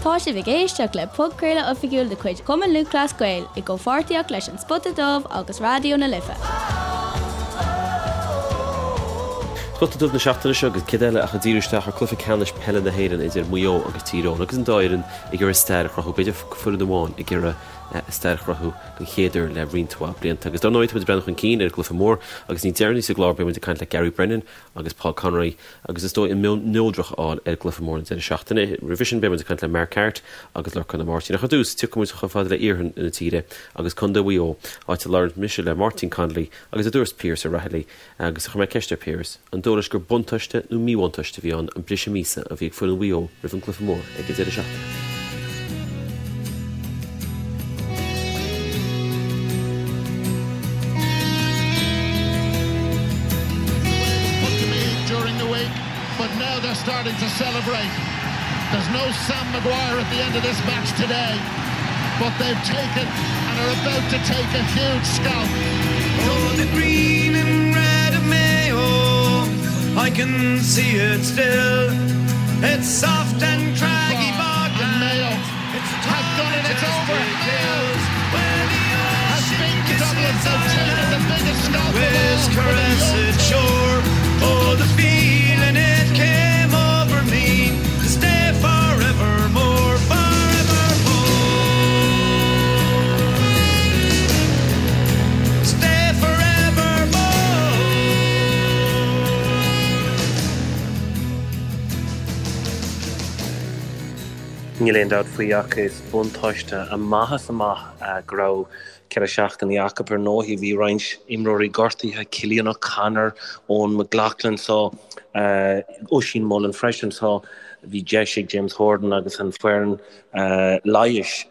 Tá sibh ag éisteacht le podchraoladh oifigiúil de chuid Chumann Lúthchleas Gael i gcomhpháirtíocht leis An Spota Dubh agus Raidió na Life. Spota Dubh na seachtaine seo agus céard eile ach ag díriú isteach ar cluiche ceannais peile na hÉireann idir Maigh Eo agus Tír Eoghain agus an dá fhoireann ag iarraidh stair a chruthú, b'fhéidir foireann amháin ag iarraidh stair a chruthú den chéad uair le roinnt mhaith blianta. Agus dar ndóigh tá muid ag breathnú chun cinn ar an gcluiche mór agus níos deireanaí sa gclár beidh muid ag caint le Gary Brennan agus Paul Conroy agus is dóigh an meon neodrach a fháil ar an gcluiche mór an deireadh seachtaine. Roimhe sin beidh muid ag caint le Mark Harte agus Lorcán Ó Máirtín. Ach ar dtús, tiocfaidh muid chomh fada le iarthar na tíre agus Contae Mhaigh Eo, áit a labhair mise le Máirtín Connolly agus a dúirt Piaras O'Rahilly agus a chuir mé ceist ar Piaras, an dóigh leis gur buntáiste nó míbhuntáiste a bhí ann an briseadh míosa a bhí ag foireann Mhaigh Eo roimh an gcluiche mór ag an deireadh seachtaine. But now they're starting to celebrate. There's no Sam Maguire at the end of this match today, but they've taken and are about to take a huge scalp. Oh, the green and red of Mayo, I can see it still. It's soft and craggy bogland. Mayo have done it, it's over. Has beaten Dublin, they've taken the biggest scalp of all. Caress shore. Oh, the feeling it came over me to stay forevermore, forevermore. Stay forevermore. Níl aon dabht faoi ach is buntáiste amach is amach go raibh 4 seachtainí acu. Ar ndóigh bhí roinnt imreoirí gortaithe, Cillian O'Connor, Eoghan McLaughlin so Oisín Mullin freisin so bhí deis ag James Horan agus an foireann leighis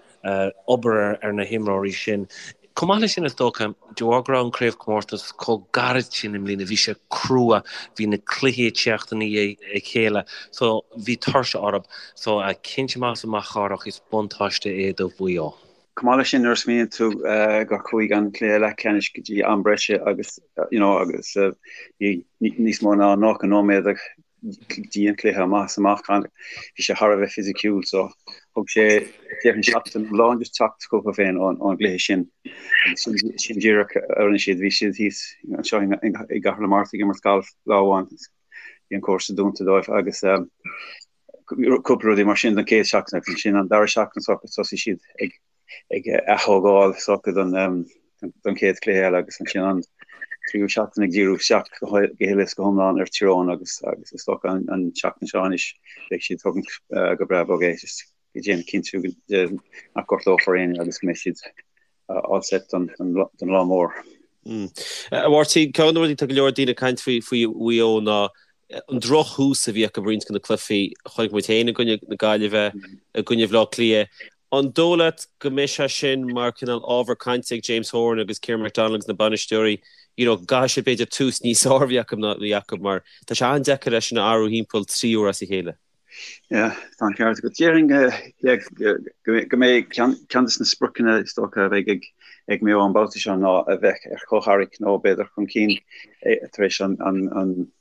obair ar na himreoirí sin. Chomh maith leis sin, is dócha, de bharr go raibh an craobhchomórtas chomh gairid sin i mbliana, bhí sé crua, bhí na cluichí ag teacht i ndiaidh a chéile, so bhí tuirse orthu. So, cinnte amach is amach Cárthach, is buntáiste é do Mhaigh Eo. Chomh maith leis sin, nuair a smaoiníonn tú gur chuaigh an cluiche leathcheannais go dtí am breise agus, you know, agus bhí níos mó ná 90 nóiméad go dtí an cluiche amach is amach, bhí sé thar a bheith fisiciúil so thug sé déarfainn seachtain iomlán just teacht chucu féin ón gcluiche sin agus sin díreach a rinne siad, bhí siad thíos anseo i gCathair na Mart ag imirt galf lá amháin, bhí an cúrsa dúnta dóibh agus cúpla rudaí mar sin don chéad seachtain agus ansin an dara seachtain thosaigh siad ag ag ath-thógáil s'acu don don chéad chluiche eile agus ansin an tríú seachtain ag díriú isteach go huile is go hiomlán ar Tír Eoghain agus agus is dócha an an tseachtain seo anois beidh siad ag tógaint go breá bog é just ag déanamh cinntiú nach gortófar éinne agus go mbeidh siad all set don don lá mór. A Mháirtín, ceann de na rudaí tá go leor daoine ag caint faoi faoi Mhaigh Eo ná an drochthús a bhí acu i roinnt de na cluichí a chonaic muid féin i gcoinne na Gaillimhe, i gcoinne Bhaile Átha Cliath. An dóigh leat go mbeidh sé sin mar cineál ábhar cainte ag James Horan agus Ciarán McDonald agus na bainisteoirí, you know, go gcaithfidh siad b'fhéidir tús níos fearr a bheith acu ná a bhí acu mar tá sé an-deacair é sin a athrú thimpeall 3 uair as a chéile. Yeah, tá an ceart agat. Déarfainn go mbeidh ceann de na spriocanna is dócha a bheidh ag ag Maigh Eo an babhta seo ná a bheith ar chomhtharrac nó b'fhéidir chun cinn tar éis an an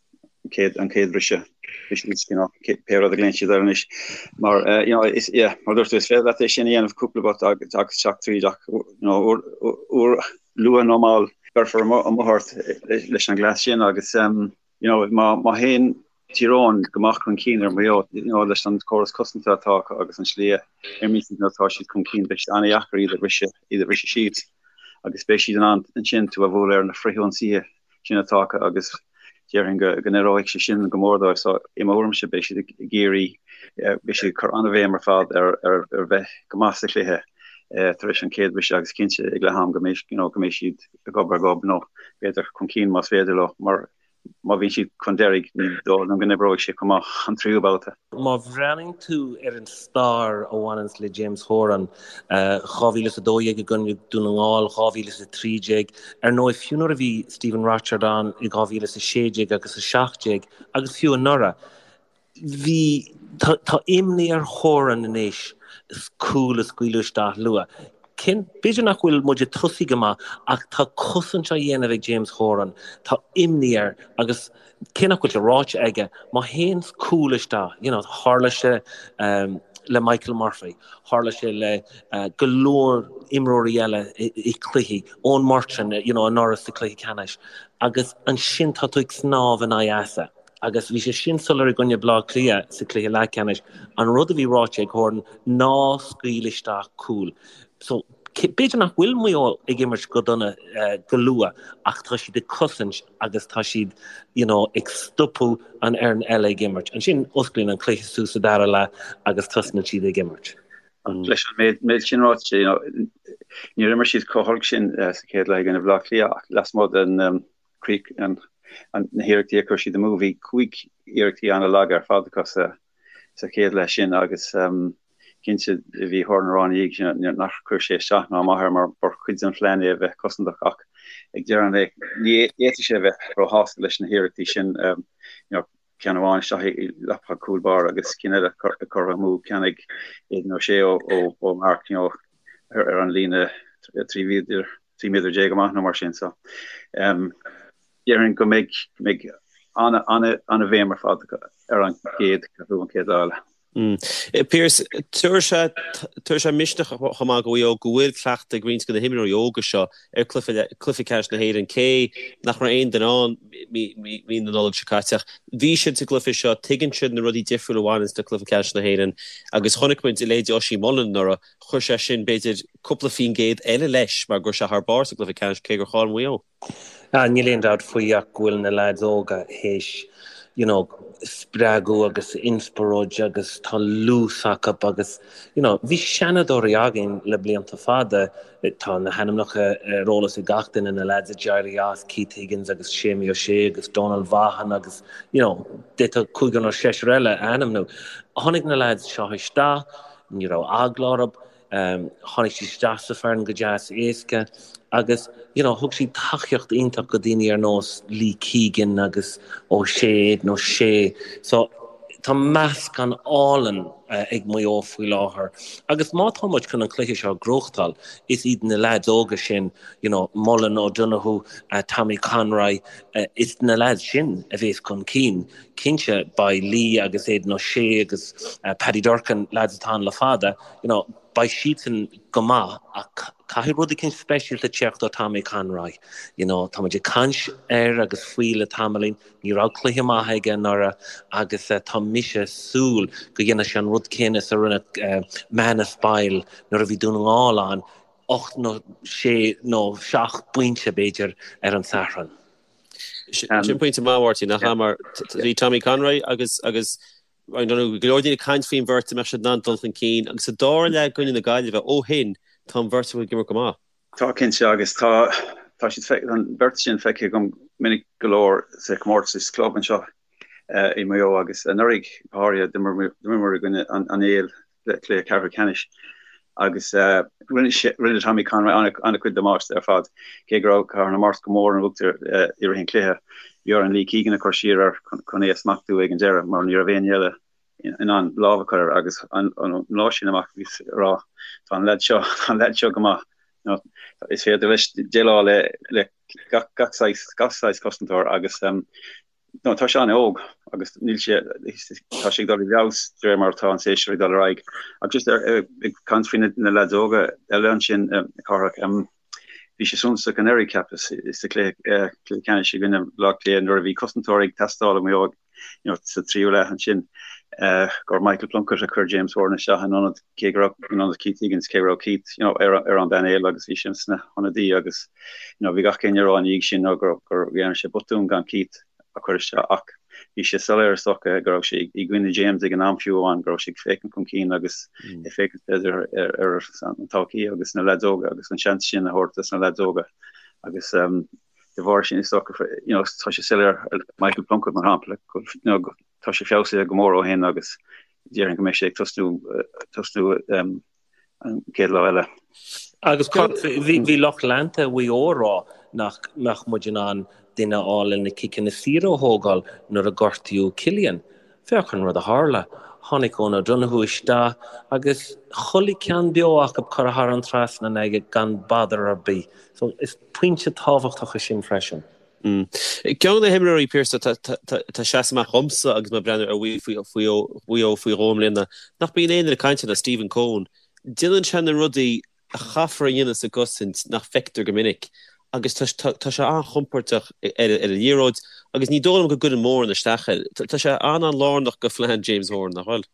chéad an chéad bhriseadh, briseadh uisce nó pé rud a ghlaonn siad air anois. Mar eh, you know, is, yeah, mar dúirt tú, is féidir leat é sin a dhéanamh cúpla babhta agus agus teacht tríd ach you know, uair, uair luath nó mall beirfear amuigh ort leis an gcleas sin agus um, you know, má, má théann Tír Eoghain go maith chun cinn ar Mhaigh Eo, you know, leis an córas cosanta atá acu agus an slí a imríonn siad nuair atá siad chun cinn, beidh sé an-dheacair iad a bhriseadh, iad a bhriseadh síos agus beidh siad in ann ansin tú a bhualadh ar na frithionsaithe sin atá acu agus déarfainn go n-oibreoidh sé sin go mór dóibh. So i mo thuairimse beidh siad ag iarraidh, beidh siad ag cur an-bhéim ar fad ar ar bheith go maith sa chluiche tar éis an chéad bhriseadh agus cinnte ag leath am go mbeidh you know go mbeidh siad gob ar ghob nó b'fhéidir chun cinn más féidir leo mar má bhíonn siad chun deiridh ní dóigh liom go n-oibreoidh sé chomh maith an tríú babhta. Má bhreathnaíonn tú ar an stair a bhaineanns le James Horan, 2012 i gcoinne Dún na nGall, 2013, ar ndóigh fiú nuair a bhí Stephen Rochford ann i 2016 agus 17 agus fiú anuraidh, Bhí, tá, tá imní ar Horan anois cúl a scaoileadh isteach luath. Cinn, b'fhéidir nach bhfuil muid ag tosaí go maith ach tá cosaint á dhéanamh ag James Horan, tá imní air agus cé nach bhfuil sé ráite aige, má théann cúl isteach, you know, tharla sé. le Michael Murphy, tharla sé le go leor imreoirí eile i cluichí, Eoin Murchan, you know, anuraidh sa cluiche ceannais, agus ansin tá tú ag snámh in aghaidh easa. Agus bhí sé sin soiléir i gcoinne Bleá Cliath sa cluiche leathcheannais, an rud a bhí ráite ag Horan, ná scaoil isteach cúl. So, b'fhéidir nach bhfuil Maigh Eo ag imirt go dona go luath ach tá siad ag cosaint agus tá siad you know, ag stopadh an fhoireann eile ag imirt. Ansin osclaíonn an cluiche suas sa dara leath agus tosnaíonn siad ag imirt. Leis an méid sin ráite, you know, níor imir siad chomh holc sin sa chéad leath i gcoinne Bhaile Átha Cliath ach lasmuigh den críoch na hiarrachtaí a chuir siad amú, bhí 5 iarrachtaí an-lag ar fad acu sa sa chéad leath sin agus cinnte bhí Horan ag rá ina dhiaidh sin nach chuir sé isteach ná amach air mar ba chuid den phlean é a bheith cosantach ach ag deireadh an lae ní fhéadfadh sé a bheith róshásta leis na hiarrachtaí sin ceann amháin isteach i leapacha cúl báire agus cinn eile curtha amú, ceann ag Aidan O'Shea ó mharc ar an líne 13 mhéadar amach nó mar sin so Déarfainn go mbeidh go mbeidh an-bhéim ar fad ar an gcéad cheathrú, an chéad lá eile. Pearse, tabharfaidh tabharfaidh sé misneach chomh maith do Mhaigh Eo go bhfuil cleachtadh ag roinnt de na himreoirí óga seo ar cluiche cluiche ceannais na hÉireann, cé nach raibh aon duine ann mí na Nollag seo caite ach bhí siad sa gcluiche seo, tuigeann siad na rudaí difriúla a bhaineanns le cluiche ceannais na hÉireann agus chonaic muid a leithéid Oisín Mullin anuraidh, chuir sé sin b'fhéidir cúpla faoin gcéad eile leis mar go raibh sé thar barr sa gcluiche ceannais cé gur chaill Maigh Eo. Níl aon dabht faoi ach go bhfuil na leaids óga théis you know spreagadh agus inspioráid agus tá luas acu agus you know bhí seanadóirí againn le blianta fada, tá na hainmneacha ar eolas ag gach duine, na leaids a d'éirigh as, Keith Higgins agus Séamie Ó Sé agus Donal Vaughan agus you know d'fhéadfá cúigear nó seisear eile a ainmniú. Tháinig na leaids seo isteach, ní raibh eagla orthu, Tháinig siad isteach sa foireann go deas éasca agus you know thug siad tacaíocht iontach go daoine ar nós Lee Keegan agus O'Shea, Aidan O'Shea. So tá meascán álainn ag Maigh Eo faoi láthair agus má tá muid chun an cluiche seo a ghnóthachtáil is iad na leaids óga sin, you know, Mullen, O'Donoghue, Tommy Conroy, is na leaids sin a bhéas chun cinn. Cinnte beidh Lee agus Aidan O'Shea agus Paddy Durcan, leaids atá ann le fada, you know, beidh siadsan go maith ach caithfidh rud eicínt speisialta teacht ó Tommy Conroy. You know, tá muid ag caint air agus faoi le tamaillín, ní raibh cluiche maith aige anuraidh agus tá mise ag súil go dhéanfaidh sé an rud céanna is a rinne Manus Boyle nuair a bhí Dún na nGall ann, 8 nó 6 nó 7 bpointe b'fhéidir ar an Satharn. Sin pointe maith, Mháirtín, nach ea? Mar bhí Tommy Conroy agus agus I don't know, go leor daoine ag caint faoin bheirt an mbeadh siad in ann dul chun cinn agus sa dara leath i gcoinne na Gaillimhe ó shin tá an bheirt acu ag imirt go maith. Tá cinnte agus tá tá siad an bheirt sin feicthe agam minic go leor sa chomórtas club anseo i Maigh Eo agus anuraidh go háirithe d'imríomar i gcoinne an Éil cluiche ceathrú ceannais agus rinne Tommy Conroy an-chuid damáiste ar fad cé go raibh Cathair na Mart go mór in uachtar i rith an chluiche. Bhí orainn Lee Keegan a chur siar air chun é a smachtú ag an deireadh mar ní raibh éinne eile in ann lámh a chur air agus an lá sin amach bhíos ag rá tá an leaid seo, tá an leaid seo go maith. Is féidir leis déileáil le gach saghas cosantóir agus No, tá sé an-óg agus níl sé, tá sé ag dul i bhfeabhas de réir mar atá an séasúr ag dul ar aghaidh. Ach just ag caint faoi na leaids óga eile ansin, Cárthach, bhí sé suntasach anuraidh, cheapas, sa chluiche ceannais i gcoinne Bhaile Átha Cliath nuair a bhí cosantóir ag teastáil ó Mhaigh Eo you know, sa tríú leath ansin, gur Michael Plunkett a chuir James Horan isteach in ionad cé go raibh in ionad Keith Higgins, cé go raibh Keith you know, ar, ar an bpainéal agus bhí sé sna hionadaí agus you know, bhí gach éinne ag rá ina dhiaidh sin nó gur, gur dhearna sé botún gan Keith a chur isteach ach bhí sé soiléir is dócha go raibh sé i gcoinne James ag an am fiú amháin go raibh sé ag féachaint chun cinn agus mm. ag féachaint b'fhéidir ar, ar an todhchaí agus na leaids óga agus an seans sin a thabhairt dos na leaids óga agus um, de bharr sin is dócha you know, tá sé soiléir Michael Plunkett mar shampla go, you know, tá sé feabhsaithe go mór ó shin agus déarfainn go mbeidh sé ag tosnú tosnú um, an chéad lá eile. Agus bhí lucht leanta Mhaigh Eo ag rá nach mbeadh muid in ann duine a fháil le na ciceanna saora a thógáil nuair a gortaíodh Cillian. Féach an rud a tharla. Tháinig Eoin O'Donoghue isteach agus chuile ceann beo acu curtha thar an trasnán aige gan bother ar bith. So is pointe tábhachtach é sin freisin. Ceann de na himreoirí, Pearse, atá ag seasamh amach dhomsa agus mé ag breathnú ar Mhaigh Eo faoi dhó i mbliana, nach mbíonn aon duine ag caint air ná Stephen Coen. Déanann sé na rudaí a chaithfear a dhéanamh sa gcosaint nach bhfeictear go minic agus tá sé an-chompordach ar an liathróid agus ní dóigh liom go gcuireann mórán isteach air. Tá sé an-an-lárnach go phlean James Horan, nach bhfuil?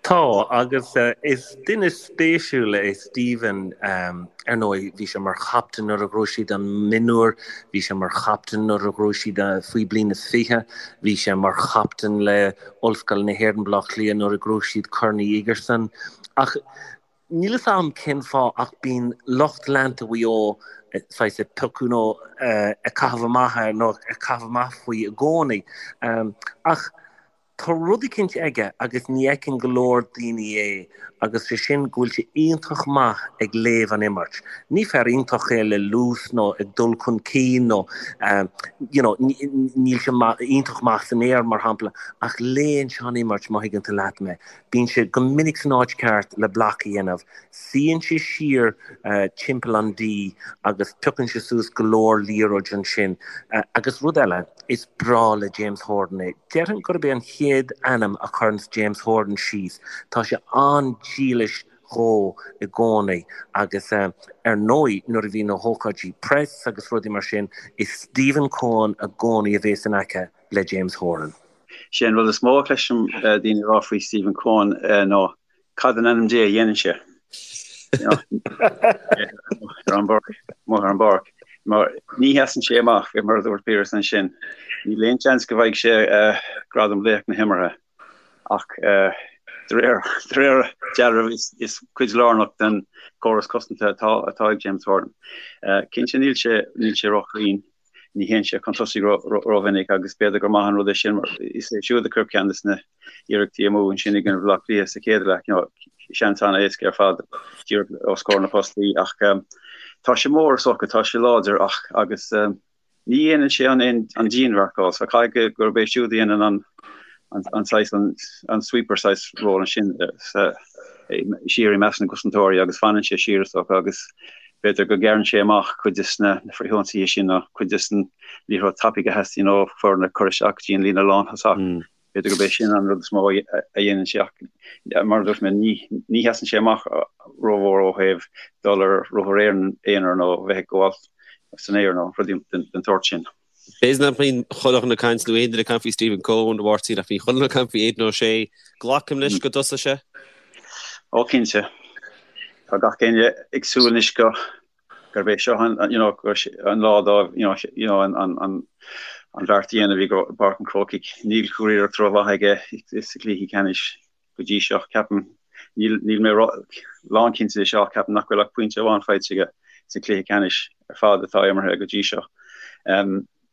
Tá, agus is duine spéisiúil é Stephen. Ar ndóigh, bhí sé mar chaptaen nuair a ghnóthaigh siad an mionúr, bhí sé mar chaptaen nuair a ghnóthaigh siad faoi bliain is 20, bhí sé mar chaptaen le Ollscoil na hÉireann, Baile Átha Cliath nuair a ghnóthaigh siad Corn Uí Igearsain. Ach níl fhios a'm cén fáth ach bíonn lucht leanta Mhaigh Eo saghas ag piocadh nó ag caitheamh amach air nó ag caitheamh amach faoi i gcónaí. Ach Tá rud eicínt aige agus ní fheiceann go leor daoine é agus sé sin go bhfuil sé iontach maith ag léamh an imirt. Ní fear iontach é le luas nó ag dul chun cinn nó you know níl sé iontach maith san aer mar shampla ach léann sé an imirt má thuigeann tú leat mé. Bíonn sé go minic san áit ceart le bloc a dhéanamh. Suíonn sé siar timpeall an D agus piocann sé suas go leor liathróid ansin. Agus rud eile. Is breá le James Horan é. Déarfainn gurb é an chéad ainm a chuireanns James Horan síos. Tá sé an-dílis dhó i gcónaí agus ar ndóigh nuair a bhíonn na hócáidí press agus rudaí mar sin, is Stephen Coen i gcónaí a bhéas in aice le James Horan. Sé an rud is mó a chloisim daoine ag rá faoi Stephen Coen ná Cad in ainm Dé a dhéanann sé? Ar an bpáirc, amuigh ar an bpáirc. Mar ní sheasann sé amach, mar a dúirt Piaras ansin. Níl aon seans go bhfaighidh sé gradam laoch na himeartha. Ach de réir dealraimh is cuid lárnach den chóras cosanta atá atá ag James Horan. Cinnte níl sé níl sé róchruinn. Ní théann sé chun tosaigh rómhinic agus b'fhéidir gur maith an rud é sin mar is é siúd a chuir ceann de na hiarrachtaí amú ansin i gcoinne Bhaile Átha Cliath sa chéad leath, you know, seans an-éasca ar fad díreach os comhair na postaí ach tá sé mór is dócha, tá sé láidir ach agus ní dhéanann sé an an dianmharcáil so caithfidh gurb é siúd a dhéanann an an saghas an sweeper saghas ról ansin sa siar i measc na gcosantóirí agus fanann sé siar is dócha agus b'fhéidir go gcearrann sé amach cuid de na frithionsaithe sin nó cuid de an liathróid tapaidh a theastaíonn ó foirne cur isteach go dtí an líne lánthosach. B'fhéidir gurb é sin an rud is mó a dhéanann sé ach mar a dúirt mé ní ní sheasann sé amach rómhór ó thaobh dul ar ruathar aonair nó bheith ag gabháil san aer nó rudaí den tsórt sin. B'fhéidir nach mbíonn chuile dhuine ag caint nó aon duine ag caint faoi Stephen Coen, a Mháirtín, ach bhí chuile dhuine ag caint faoi Aidan O'Shea. Glacaim leis go dtosóidh sé? Ó cinnte. Tá gach éinne ag súil anois go gurb é seo an you know an lá dóibh you know you know an an an an bheart a dhéanamh i bPáirc an Chrócaigh. Níl curiarracht rómhaith aige sa chluichí ceannais go dtí seo. Ceapaim, níl níl mé lánchinnte de seo ach ceapaim nach bhfuil ach pointe amháin faighte aige sa chluiche ceannais ar fad atá imeartha go dtí seo.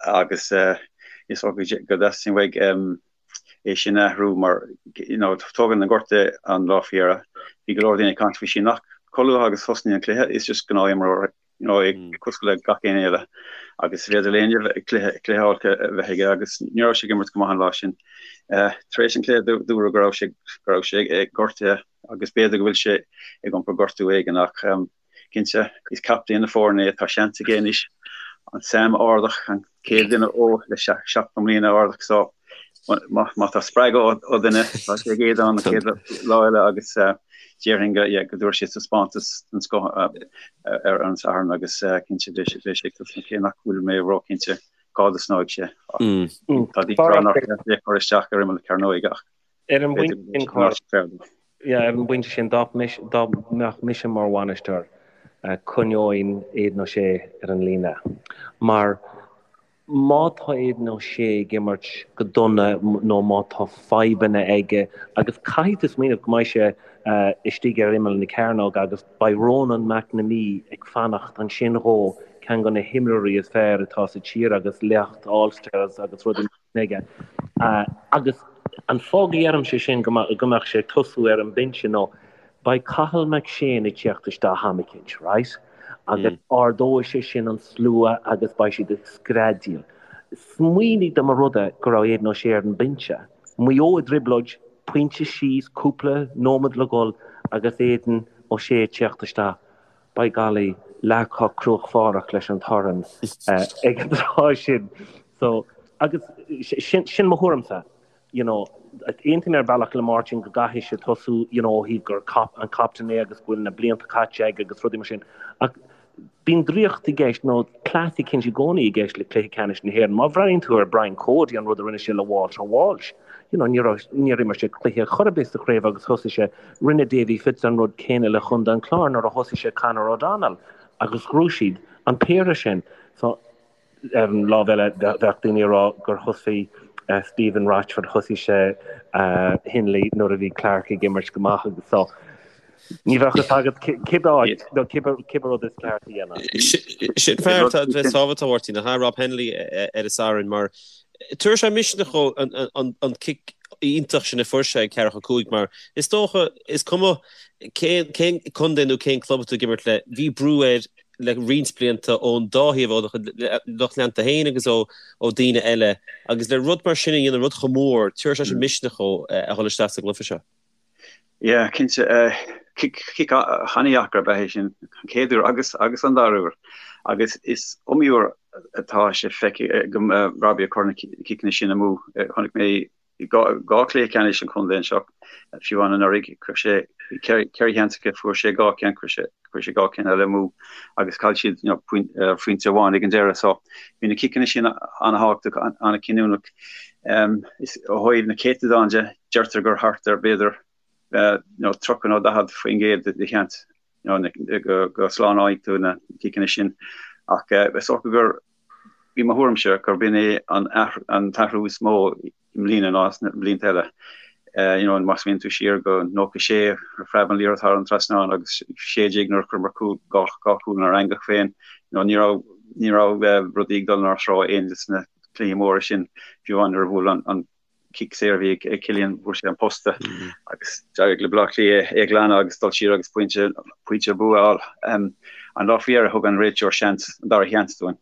Agus is dócha go dteastaíonn uaidh é sin a athrú mar you know tógann an gortú an lá faoi dheireadh. Bhí go leor daoine ag caint faoi sin ach chomh luath agus thosnaíonn an cluiche is just gnáthimreoir you know, é cosúil le gach éinne eile agus is féidir le éinne cluiche cluiche olc a bheith aige agus ní raibh sé ag imirt go maith an lá sin. Tar éis an chluiche dúradh go raibh sé go raibh sé gortaithe agus b'fhéidir go bhfuil sé ag iompar gortú éigin ach cinnte is captaen na foirne é, tá seans aige anois an Sam a ardach, an chéad duine ó le 70 mbliana a ardach so má tá spreagadh ó dhuine, tá sé ag Aidan an chéad lá eile agus déarfainn go yeah, go dtabharfaidh sé taispeántas den scoth ar an Satharn agus cinnte beidh sé ag tosnú cé nach bhfuil mé róchinnte cá dtosnóidh sé. Tá daoine ag rá nár cheart é a chur isteach ar imeall na cearnóige ach Ar an bpointe sin, Cárthach, yeah, ar an bpointe sin, dá mbeadh mise mar bhainisteoir, coinneoinn Aidan O'Shea ar an líne. Mar Má tá Aidan O'Shea ag imirt go dona nó má tá fadhbanna aige, agus caithfidh tú smaoineamh go mbeidh sé istigh ar imeall na cearnóige agus beidh Ronan McNamee ag fanacht ansin dhó, ceann de na himreoirí is fearr atá sa tír agus liacht All-Stars agus rudaí mar sin aige. Agus an fáth go ndeirimse sin go mbeadh sé ag tosú ar an mbinse nó Beidh Cathal McShane ag teacht isteach am eicínt, right? Agus ardóidh sé sin an slua agus beidh siad ag screadaíl. Smaoinigh dá mba rud é go raibh Aidan O'Shea ar an mbinse. Maigh Eo i dtrioblóid, pointe síos, cúpla nóiméad le dhul agus Aidan O'Shea ag teacht isteach. By golly. leath chomh cruachbháireach leis an torann ag an tráth sin. So, agus sin, sin mo thuairimse. You know, aontaím ar bhealach le Máirtín go gcaithfidh sé tosú, you know, ó thaobh gur cap, an captaen é agus go bhfuil na blianta caite aige agus rudaí mar sin. Ach bíonn draíocht i gceist nó cleas eicínt i gcónaí i gceist le cluiche ceannais na hÉireann. Má bhreathnaíonn tú ar Brian Cody, an rud a rinne sé le Walter Walsh, you know, ní raibh, níor imir sé cluiche chor ar bith sa chraobh agus thosaigh sé, rinne Davy Fitz an rud céanna le Chontae an Chláir nuair a thosaigh sé Conor O'Donnell agus ghnóthaigh siad an péire sin. So, Ar an lámh eile, bheadh daoine ag rá gur thosaigh Stephen Rochford, thosaigh sé Henley nuair a bhí Clarke ag imirt go maith agus so ní bheadh fhios agat cibé áit nó cibé rud is ceart a dhéanamh. Sin fear atá bheith sábháilte a Mháirtín, nach ea, Rob Hennelly ar an Satharn mar tabharfaidh sé misneach dhó an cic iontach sin a fuair sé ag ceathracha 5 mar is dócha is cuma cén contae nó cén club atá tú ag imirt le, bhí brú air le roinnt blianta ón dá thaobh, ó lucht leanta féin agus ó daoine eile, agus le rud mar sin a dhéanamh, rud chomh mór, tabharfaidh sé sin misneach dhó a dhul isteach sa gcluiche seo. Yeah, cinnte. Cic an-dheacair ab ea é sin, an chéad uair agus agus an dara huair. Agus is iomaí uair atá sé feicthe agam Robbie ag cur na ciceanna sin amú. Chonaic mé 2 chluiche ceannais an chontae anseo, fiú amháin anuraidh, chuir sé 4 sheans aige, fuair sé 2 cheann, chuir sé chuir sé 2 cheann eile amú agus chaill siad you know, pointe amháin ag an deireadh. So bhí na ciceanna sin an-thábhachtach, an-chinniúnach. Um, is ó thaobh na céatadán de, deirtear gur thart ar b'fhéidir uh, you know, 30 nó 40% de sheans you know, go, go slánóidh tú na ciceanna sin. Ach uh, is dócha gur I mo thuairimse gurb in é an t-athrú is mó i mbliana ná sna blianta eile. You know, má smaoiníonn tú siar go 96, phreab an liathróid thar an trasnán agus 16 nuair a chuireamar cúl, dhá chúl inár eangach féin, you know, ní raibh, ní raibh rudaí ag dul inár dtreo aon de sna cluichí móra sin, fiú amháin nuair a bhuail an cic saor a bhí ag Cillian, bhuail sé an posta agus d'éirigh le Baile Átha Cliath é a ghlanadh agus dul siar agus pointe, pointe bua a fháil. An lá faoi dheireadh thug an réiteoir seans, an dara sheans dúinn,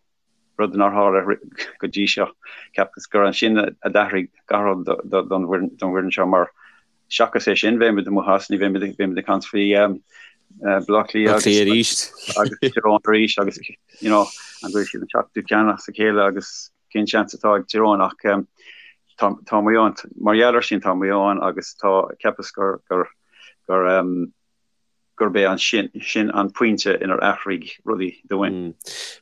rud nár tharla go dtí seo. Cheapas gur ansin a d'athraigh gach rud don bhfoireann seo mar seachas é sin bheimid amuigh as, ní bheimid, bheimid ag caint faoi Baile Átha Cliath agus agus Tír Eoghain arís agus you know, an bhfuil siad an seachtú ceann as a chéile agus cén seans atá ag Tír Eoghain ach tá tá Maigh Eo mar gheall ar sin tá Maigh Eo ann agus tá cheapas gur gur gur gurb é an sin sin an pointe inar athraigh rudaí dúinn.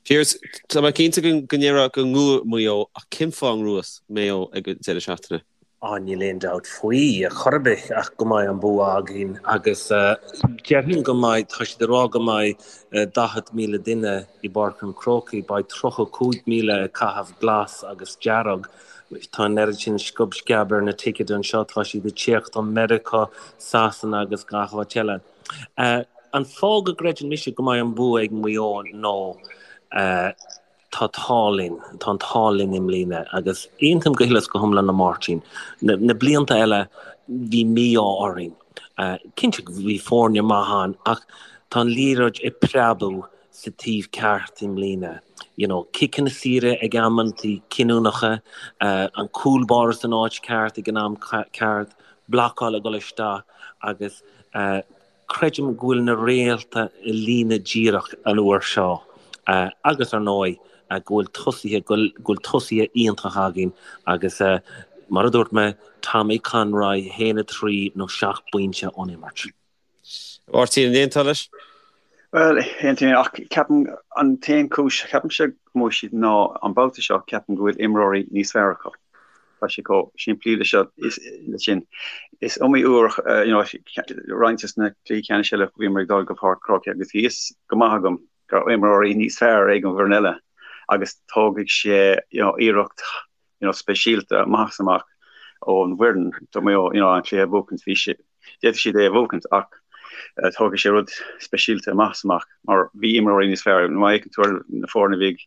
Pearse, tá mé cinnte go go ndéarfá go ngnóthóidh Maigh Eo ach cén fáth a ngnóthós Maigh Eo ag an deireadh seachtaine? Á, níl aon dabht faoi, ar chor ar bith, ach go mbeidh an bua againn agus déarfainn go mbeidh, tá siad ag rá go mbeidh 40,000 duine i bPáirc an Chrócaigh, beidh 35,000 ag caitheamh glas agus dearg, tá an oiread sin sciob sceab ar na ticéid anseo, tá siad ag tíocht ó Meiriceá, Sasana agus gach áit eile. An fáth go gcreideann mise go mbeidh an bua ag Maigh Eo ná, Tá t-ádh linn, tá an t-ádh linn i mbliana agus aontaím go huile is go hiomlán le Máirtín. Na blianta eile bhí mí-ádh orainn. Cinnte bhí foirne maith ann ach tá an liathróid ag preabadh sa taobh ceart i mbliana. You know, ciceanna saora ag amantaí cinniúnacha, an cúl báire san áit ceart ag an am ceart, blocáil ag dul isteach agus Creidim go bhfuil na réalta i líne díreach an uair seo agus, ar ndóigh, go bhfuil tosaithe, go bhfuil tosaithe iontach againn agus, mar a dúirt mé, Tommy Conroy, 1, 3 nó 7 bpointe ón imirt. Máirtín, an aontófá leis? Bhuel, aontaím, ach ceapaim an t-aon chúis, ceapaimse go mbuafaidh siad ná an babhta seo ceapaim go bhfuil imreoirí níos fearr acu. Tá sé chomh simplí le seo, le sin. Is iomaí uair, you know, roinnt de na cluichí ceannais eile bhíomar ag dul go Páirc an Chrócaigh agus bhí fhios go maith agam go raibh imreoirí níos fearr ag an bhfoireann eile agus tógfaidh sé, you know, iarracht, you know, speisialta amach is amach ón bhfoireann do Mhaigh Eo, you know, an cluiche a bhuachaint. Bhí sé, d'fhéadfadh siad é a bhuachaint ach tógfaidh sé rud speisialta amach is amach mar bhí imreoirí níos fearr. Má fhéachann tú ar na foirne a bhí ag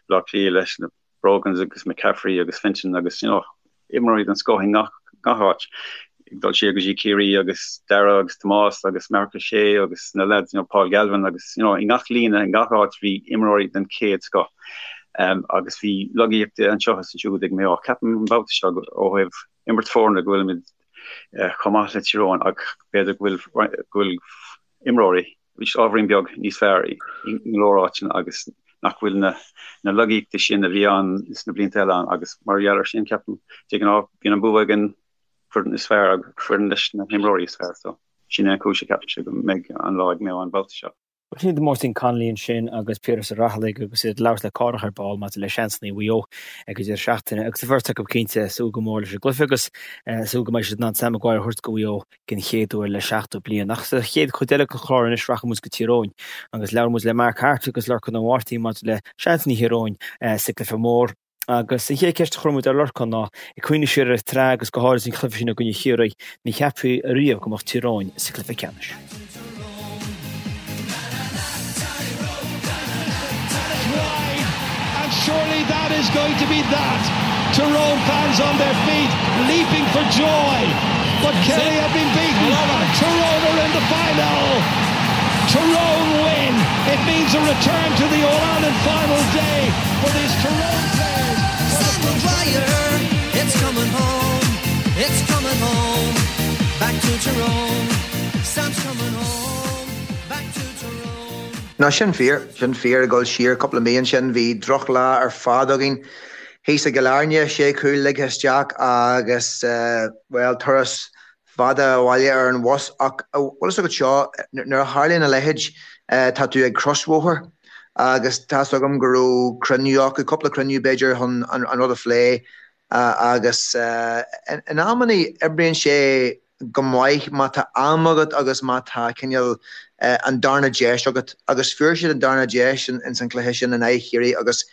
Baile Átha Cliath leis na Brogans agus McCaffrey agus Fenton agus you know imreoirí den scoth i ngach gach áit. Ag dul siar go dtí Ciarraí agus Darragh agus Tomás agus Marc Ó Sé agus na lads you know Paul Galvin agus you know i ngach líne i ngach áit bhí imreoirí den chéad scoth. Um, agus bhí lagaíocht anseo is ansiúd ag Maigh Eo. Ceapaim an babhta seo ó thaobh imirt foirne go bhfuilimid uh, chomh maith le Tír Eoghain ach b'fhéidir go bhfuil go bhfuil imreoirí. Arís ábhairín beag níos fearr i go leor áiteanna agus nach bhfuil na na lagaíochtaí sin a bhí ann sna blianta eile ann agus mar gheall ar sin ceapaim de ghnáth bíonn an bua ag an foireann is fearr agus foireann leis na himreoirí is fearr so sin é an chúis a ceapaimse go mbeidh an lá ag Maigh Eo an babhta seo. Sin iad Máirtín Connolly ansin agus Piaras Ó Raghallaigh agus iad ag labhairt le Cárthach ar ball maidir le seansanna Mhaigh Eo ag an deireadh seachtaine agus an bheirt acu cinnte ag súil go mór leis an gcluiche agus ag súil go mbeidh siad in ann Sam Maguire a thabhairt go Mhaigh Eo den chéad uair le 70 bliain. Ach sa chéad chuid eile den chlár anois rachaidh muid go Tír Eoghain agus labhróidh muid le Mark Harte agus Lorcán Ó Máirtín maidir le seansanna Thír Eoghain sa gcluiche mór. Agus an chéad cheist a chuir muid ar Lorcán ná, ag cuimhneamh siar ar an tsraith agus go háirid an cluiche sin i gcoinne Chiarraí, an gceapfaí riamh go mbeadh Tír Eoghain sa chluiche ceannais? Surely that is going to be that. Tyrone fans on their feet, leaping for joy. But Kerry have been beaten. Tyrone are in the final. Tyrone win. It means a return to the All-Ireland final day for these Tyrone players. Sam Maguire, it's coming home. It's coming home. Back to Tyrone. Sam's coming home. Back to Tyrone. No, sin fíor, sin fíor. Ag dul siar cúpla mí ansin, bhí drochlá ar fad againn thíos i gCill Airne, sé chúl ligthe isteach agus, bhuel, turas fada abhaile ar an bhus ach bhfuil fhios agat seo, nuair a tharlaíonn a leithéid, tá tú ag crosbhóthar agus tá's agam go raibh cruinniú acu, cúpla cruinniú b'fhéidir chun an rud a phlé agus in amannaí oibríonn sé go maith má tá am agat agus má tá cineál an darna deis agat agus fuair siad an darna deis ins an chluiche sin in aghaidh Chiarraí agus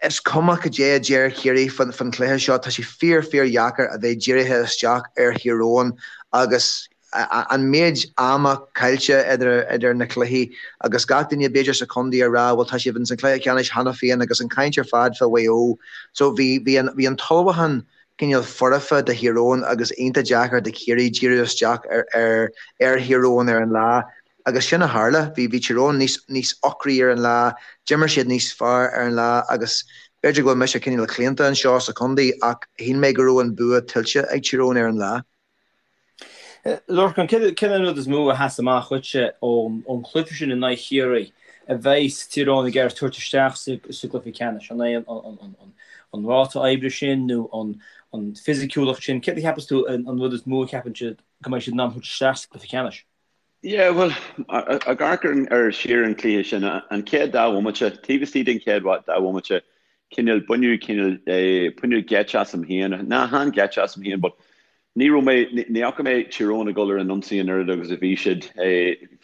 Is cuma cad é a deir Ciarraí faoin chluiche seo, tá sé fíor fíor dheacair a bheith dírithe isteach ar Thír Eoghain agus an méid ama caillte idir na cluichí agus gach duine b'fhéidir sa chontae ag rá bhuel tá sibh ins an chluiche ceannais cheana féin agus an chaint ar fad fá Mhaigh Eo. So bhí bhí an bhí an t-ullmhúchán cineál foirfe do Thír Eoghain agus iontach deacair do Chiarraí díriú isteach ar ar ar Thír Eoghain ar an lá. Agus sin a tharla. Bhí bhí Tír Eoghain níos níos ocraí ar an lá, d'imir siad níos fearr ar an lá agus b'fhéidir go bhfuil mise cineál claonta anseo sa chontae ach shíl mé go raibh an bua tuillte ag Tír Eoghain ar an lá. Lorcán, céard é an rud is mó a sheas amach dhuitse ón ón chluiche sin in aghaidh Chiarraí a bheidh Tír Eoghain ag iarraidh tabhairt isteach sa sa gcluiche ceannais? An é an an an an ráta oibre sin nó an an fisiciúlacht sin? Céard a cheapas tú an an rud is mó a cheapann siad go mbeidh siad in ann thabhairt isteach sa gcluiche ceannais? Yeah, bhuel, ag amharc ar siar an cluiche sin, an chéad dá bhomaite, taobh istigh den chéad dá bhomaite, cineál, baineadh cineál, baineadh geit asam féin, ná chan geit asam féin, but ní raibh mé, ní fhaca mé Tír Eoghain ag dul ar an ionsaí an oiread agus a bhí siad,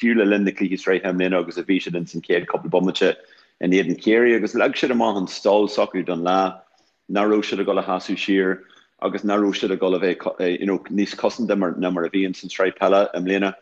fiú le linn na cluichí sraithe i mbliana agus a bhí siad ins an chéad cúpla bomaite in éadan Chiarraí agus leag siad amach an stíl s'acu don lá. nach raibh siad ag dul a sheasamh siar agus nach raibh siad ag dul a bheith you know níos cosanta mar ná mar a bhí ins an tsraith peile i mbliana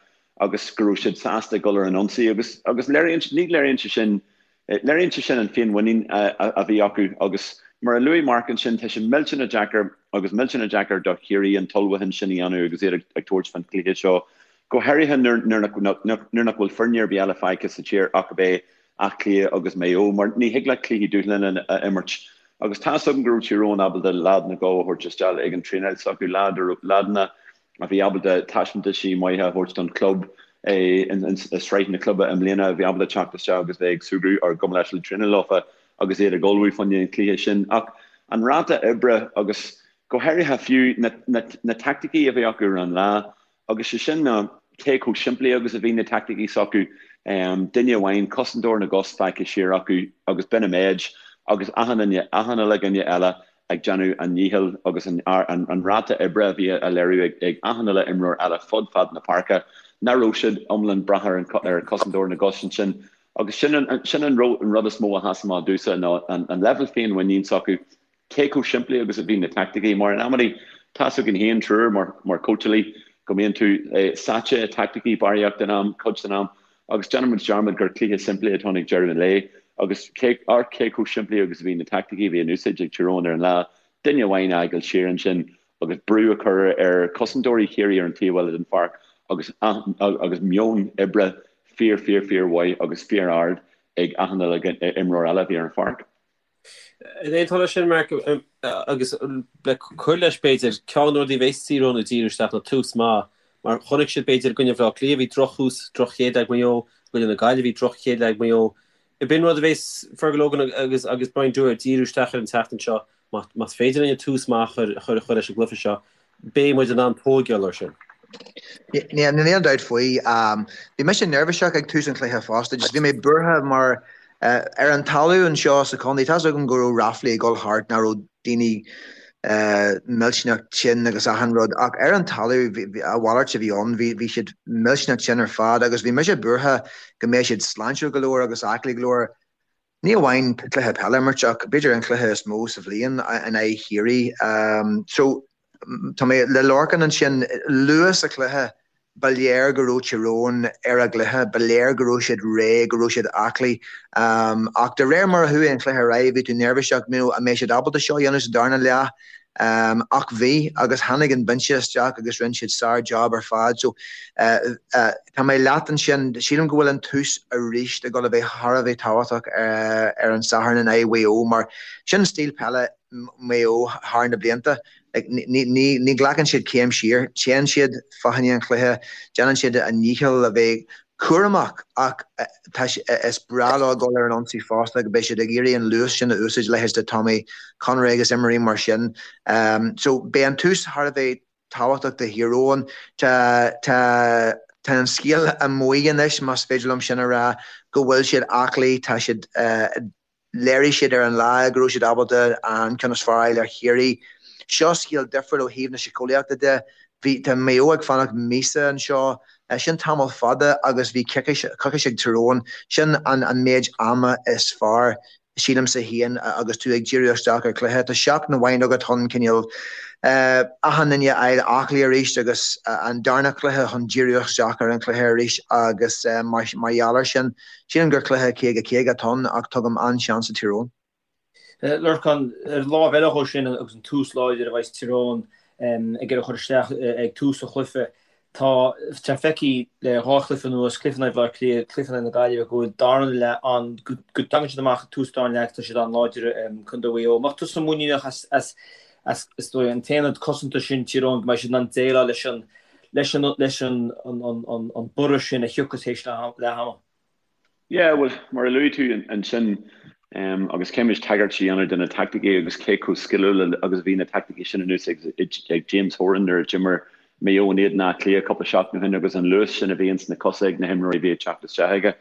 agus go raibh siad sásta ag dul ar an ionsaí agus agus léiríonn ní léiríonn sé sin léiríonn sé sin an féinmhuinín a a bhí acu agus mar a luaigh Mark ansin tá sé millteanach deacair agus millteanach deacair do Chiarraí an t-ullmhúchán sin a dhéanamh agus iad ag ag tabhairt fán chluiche seo go háirithe nuair nuair nach nuair nach bhfuil foirne ar bith eile fágtha sa tír ach ab é Áth Cliath agus Maigh Eo, mar ní thig leat cluichí dúshláin a imirt. Agus tá's agam go raibh Tír Eoghain ábalta leaideanna a thabhairt isteach ag an traenáil s'acu, leaideanna a bhí ábalta taispeántaisí maithe a thabhairt don chlub i sraith na cluibe i mbliana, a bhí ábalta teacht isteach agus bheith ag súgradh ar gabh mo leithscéal traenáil leofa agus iad ag ullmhú fá choinne an chluiche sin. Ach an ráta oibre agus go háirithe fiú na teaicticí a bhí acu ar an lá, Agus sé sin ná cé chomh simplí agus a bhí na teaicticí s'acu, duine amháin, cosantóir na gcos fágtha siar acu agus b'in an méid, agus achan duine, achan uile dhuine eile ag déanamh a ndíchill agus an ráta oibre a bhí á léiriú ag achan uile imreoir eile fud fad na páirce, nach raibh siad iomlán brath ar an cosantóir na gcos ansin. Agus sin an rud is mó a sheas amach domhsa ná an leibhéal féinmhuinín s'acu. Cé chomh simplí agus a bhí na teaicticí, mar in amannaí, tá's againn féin triúr mar mar cóitseálaí go mbíonn tú sáite i teaicticí barraíocht den am, cuid den am, agus déanann muid dearmad gur cluiche simplí atá ann ag deireadh an lae agus cé amharc cé chomh simplí agus a bhí na teaicticí a bhí in úsáid ag Tír Eoghain ar an lá, duine amháin a fhágáil siar ansin agus brú a chur ar chosantóirí Chiarraí ar an taobh eile den pháirc agus agus meon oibre fíor fíor fíor mhaith agus fíor ard ag achan uile imreoir eile a bhí ar an pháirc. An aontófá leis sin, Mark, agus le cur leis, b'fhéidir, ceann de na rudaí a bheas Tír Eoghain ag díriú isteach ná tús maith. Mar chonaic siad, b'fhéidir, i gcoinne Bhaile Átha Cliath, bhí drochthús, droch-chéad leath ag Maigh Eo, i gcoinne na Gaillimhe, bhí droch-chéad leath ag Maigh Eo. B'in rud a bheas Fergal Logan agus agus Brian Dooher ag díriú isteach air an tseachtain seo. Más féidir linn tús maith a chur a chur leis an gcluiche seo, beidh muid in ann tóigeáil air sin. Níl aon dabht faoi. Bhí mise neirbhíseach ag tús an chluiche fosta. Just bhí mé buartha mar ar an talamh anseo sa chontae, tá's agam go raibh ráflaí ag dul thart nach raibh daoine millteanach tinn agus achan rud ach ar an talamh a mhalairt a bhí ann, bhí siad millteanach tinn ar fad agus bhí mise buartha go mbeadh siad sláintiúil go leor agus aclaí go leor, ní amháin cluiche peile a imirt ach b'fhéidir an cluiche is mó sa bhliain in aghaidh Chiarraí. So tá mé le Lorcán ansin, luath sa chluiche Ba léir go raibh Tír Eoghain ar a gcluiche, ba léir go raibh siad réidh, go raibh siad aclaí. Ach de réir mar a chuaigh an cluiche ar aghaidh, bhí tú neirbhíseach, you know, an mbeidh siad ábalta seo a dhéanamh sa darna leath? Ach bhí, agus tháinig an binse isteach agus rinne siad sár-job ar fad. So, tá mé leat ansin, sílim go bhfuil an tús arís ag dul a bheith thar a bheith tábhachtach ar an Satharn in aghaidh Mhaigh Eo mar sin stíl peile Mhaigh Eo thar na blianta. Ní ghlacann siad céim siar, téann siad fá choinne an chluiche, déanann siad a ndícheall a bheith cúramach ach is breá leo dul ar an ionsaí fosta go beidh siad ag iarraidh an luas sin a úsáid, leithéid de Tommy Conroy agus imreoirí mar sin. So beidh an tús thar a bheith tábhachtach do Thír Eoghain. Tá tá tá an scéal amuigh anois, más féidir liom sin a rá, go bhfuil siad aclaí, tá siad Léirigh siad ar an lá go raibh siad ábalta an ceann is fearr a fháil ar Chiarraí. Seo scéal difriúil ó thaobh na síceolaíochta de. Bhí, tá Maigh Eo ag fanacht míosa anseo. Sin tamall fada agus bhí coicís ag Tír Eoghain. Sin an an méid ama is fearr, sílimse féin, agus tú ag díriú isteach ar chluiche. Tá seachtain amháin agat chun cineál achan duine a fháil aclaí arís agus an darna cluiche chun díriú isteach ar an chluiche arís agus mar gheall air sin, Sílim gur cluiche 50, 50 atá ann ach tugaim an-seans do Thír Eoghain. Lorcán, ar an lámh eile dhó sin agus an tús láidir a bheas Tír Eoghain ag iarraidh a chur isteach ag tús an chluiche, tá sé feicthe le dhá chluiche anuas, cluiche in aghaidh Bhaile Átha Cliath, cluiche in aghaidh na Gaillimhe, go bhfuil darna leath an, go dtagann siad amach ag tús darna leath agus tá siad an-láidir, Contae Mhaigh Eo. An mbeadh tusa muiníneach as, as, as, is dóigh, an t-aonad cosanta sin Tír Eoghain go mbeidh siad in ann déileáil leis an, leis an leis an an borradh sin a thiocfas théis leath ama. Yeah, bhuel, mar a luaigh tú ansin, agus caithfidh muid tagairt a dhéanamh do na taicticí agus cé chomh sciliúil agus a bhí na taicticí sin in úsáid ag James Horan nuair a d'imir Maigh Eo in éadan Átha Cliath cúpla seachtain ó shin agus an luas sin a bhí ins na cosa ag na himreoirí a bhí ag teacht isteach aige.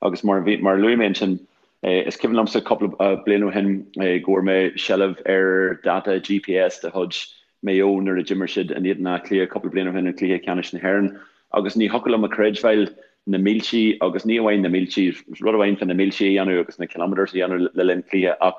Agus mar a bhí, mar a luaigh mé ansin, is cuimhin liomsa cúpla bliain ó shin go bhfuair mé seilbh ar data GPS de chuid Maigh Eo nuair a d'imir siad in éadan Átha Cliath cúpla bliain ó shin i gcluiche ceannais na hÉireann agus ní thiocfadh liom a chreidbheáil na míltí agus ní amháin na míltí, rud amháin fá na míltí a dhéanamh agus na kilometres a dhéanamh le linn cluiche ach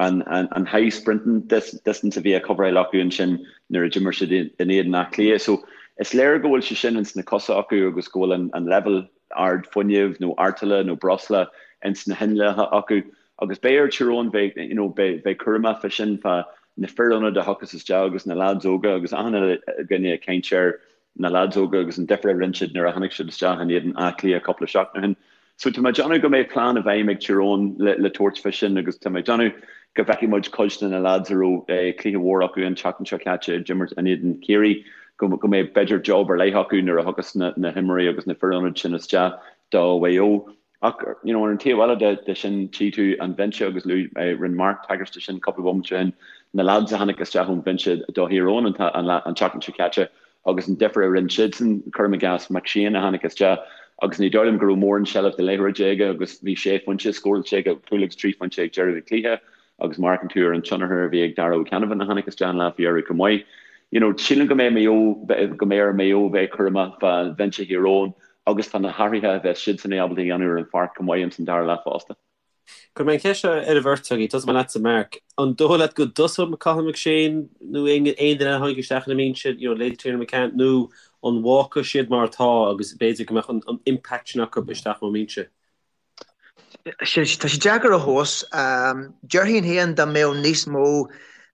an an high sprinting distance a bhí á coveráil acu ansin nuair a d'imir siad in éadan Átha Cliath. So is léir go bhfuil sé sin ins na cosa acu agus go bhfuil an an leibhéal ard fuinnimh nó artaille nó breosla ins na hinneacha acu Agus beidh ar Tír Eoghain bheith, you know, beidh, bheith cúramach fá sin, fá na fir ionaid a thiocfas isteach agus na leaids óga agus achan uile dhuine ag caint ar na leaids óga agus an difear a rinne siad nuair a tháinig siad isteach in éadan Áth Cliath cúpla seachtain ó shin. So tá mé ag déanamh go mbeidh plean i bhfeidhm ag Tír Eoghain le, le tabhairt fá sin agus tá mé ag déanamh go bhfeicfidh muid cuid de na leaids a raibh eh, cluiche mhór acu an tseachtain seo caite ag imirt in éadan Chiarraí go, go mbeidh b'fhéidir job ar leith acu nuair a thiocfas na, na himreoirí agus na fir ionaid sin isteach do Mhaigh Eo. Ach, you know, ar an taobh eile de, de sin, tchí tú an bhinse agus luaigh, rinne Mark tagairt de sin cúpla bomaite ó shin, na lads a tháinig isteach ón bhinse do Thír Eoghain an, an, an tseachtain seo caite agus an difear a rinne siadsan, cuirim i gcás McShane a tháinig isteach agus ní dóigh liom go raibh mórán seilbh de liathróid aige agus bhí sé phointe scóráilte aige, cúl agus trí phointe ag deireadh an chluiche agus má amharcann tú ar an tionchar a bhí ag Darragh O'Canavan a tháinig isteach an lá faoi dheireadh chomh maith. You know, sílim go mbeidh Maigh Eo, go mbeidh ar Maigh Eo bheith cúramach fá bhinse Thír Eoghain agus tá na hathruithe a bheas siadsan ábalta a dhéanamh ar an pháirc chomh maith ins an dara leath fosta. Cuirfidh mé an cheist seo ar an bheirt agaibh, tosóidh mé leatsa Mark. An dóigh leat go dtosóidh Cathal McShane nó aon duine eile a tháinig isteach ina mbinse, you know, leithéid Tiernan McCann, nó an bhfágfaidh siad mar atá agus b'fhéidir go mbeadh an impact sin acu isteach ón mbinse? Tá sé deacair a thomhas. Déarfainn féin dá mbeadh níos mó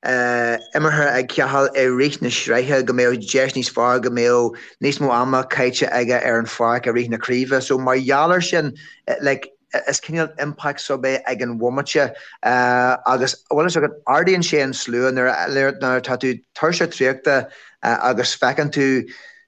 imeartha ag Cathal i rith na sraithe go mbeadh deis níos fearr go mbeadh níos mó ama caite aige ar an pháirc i rith na craoibhe. So mar gheall air sin, like, is cineál impact sub é ag an bhomaite agus bhfuil fhios agat, ardaíonn sé an slua nuair atá tú tuirseach traochta agus feiceann tú.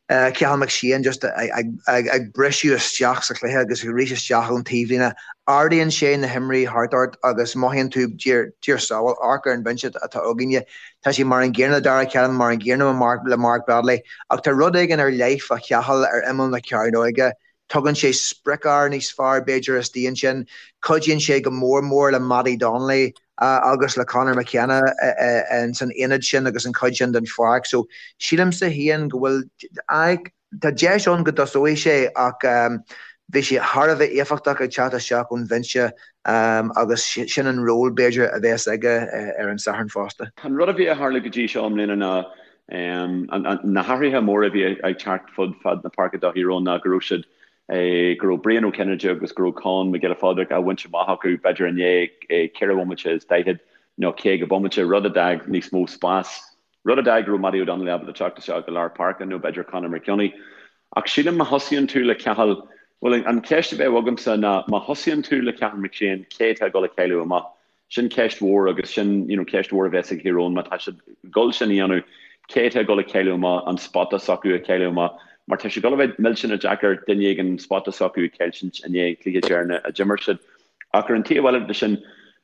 Cathal McShane just ag briseadh isteach sa chluiche agus arís isteach ón taobhlíne. Ardaíonn sé na himreoirí thart ort agus mothaíonn tú, Dia ár sábháil, amharc ar an bhinse atá againne. Tá sé mar an gcéanna le Darragh Callan, mar an gcéanna le Mark Bradley. Ach tá rud éigin ar leith fá Chathal ar imeall na cearnóige. Tugann sé sprioc-fhear níos fearr, b'fhéidir, istigh ansin. Cuidíonn sé go mór mór le Mattie Donnelly agus le Conor McKenna san aonad sin agus an chuid sin den pháirc. So, sílimse féin go bhfuil, aye, tá deis ann go dtosóidh sé ach bhí sé thar a bheith éifeachtach ag teacht isteach ón bhinse agus sin an ról, b'fhéidir, a bheas aige ar an Satharn fosta. An rud a bhí ag tarlú go dtí seo i mbliana ná Na hathruithe móra a bhí ag teacht fud fad na páirce do Thír Eoghain ná go raibh siad, go raibh Brian Ó Cinnéide agus go raibh Con Mac Giolla Phádraig á bhaint amach acu b'fhéidir i ndiaidh 4 bhomaite is 40 nó 50 bomaite, rud a d'fhág níos mó spáis, rud a d'fhág go raibh Mattie O'Donnell ábalta teacht isteach go lár páirce nó b'fhéidir Conor McKeowney. Ach sílim má thosaíonn tú le Cathal, bhuel an cheist a bheadh agamsa ná má thosaíonn tú le Cathal McShane, cé atá ag dul a chailleadh amach? Sin ceist mhór agus sin you know ceist mhór a bheas ag Thír Eoghain má tá siad ag dul sin a dhéanamh, cé atá ag dul a chailleadh amach, an spota s'acu a chailleadh amach mar tá sé ag dul a bheith millteanach deacair duine éigin an spota s'acu a chailltint i ndiaidh an cluiche deireanach a d'imir siad. Ach ar an taobh eile de sin,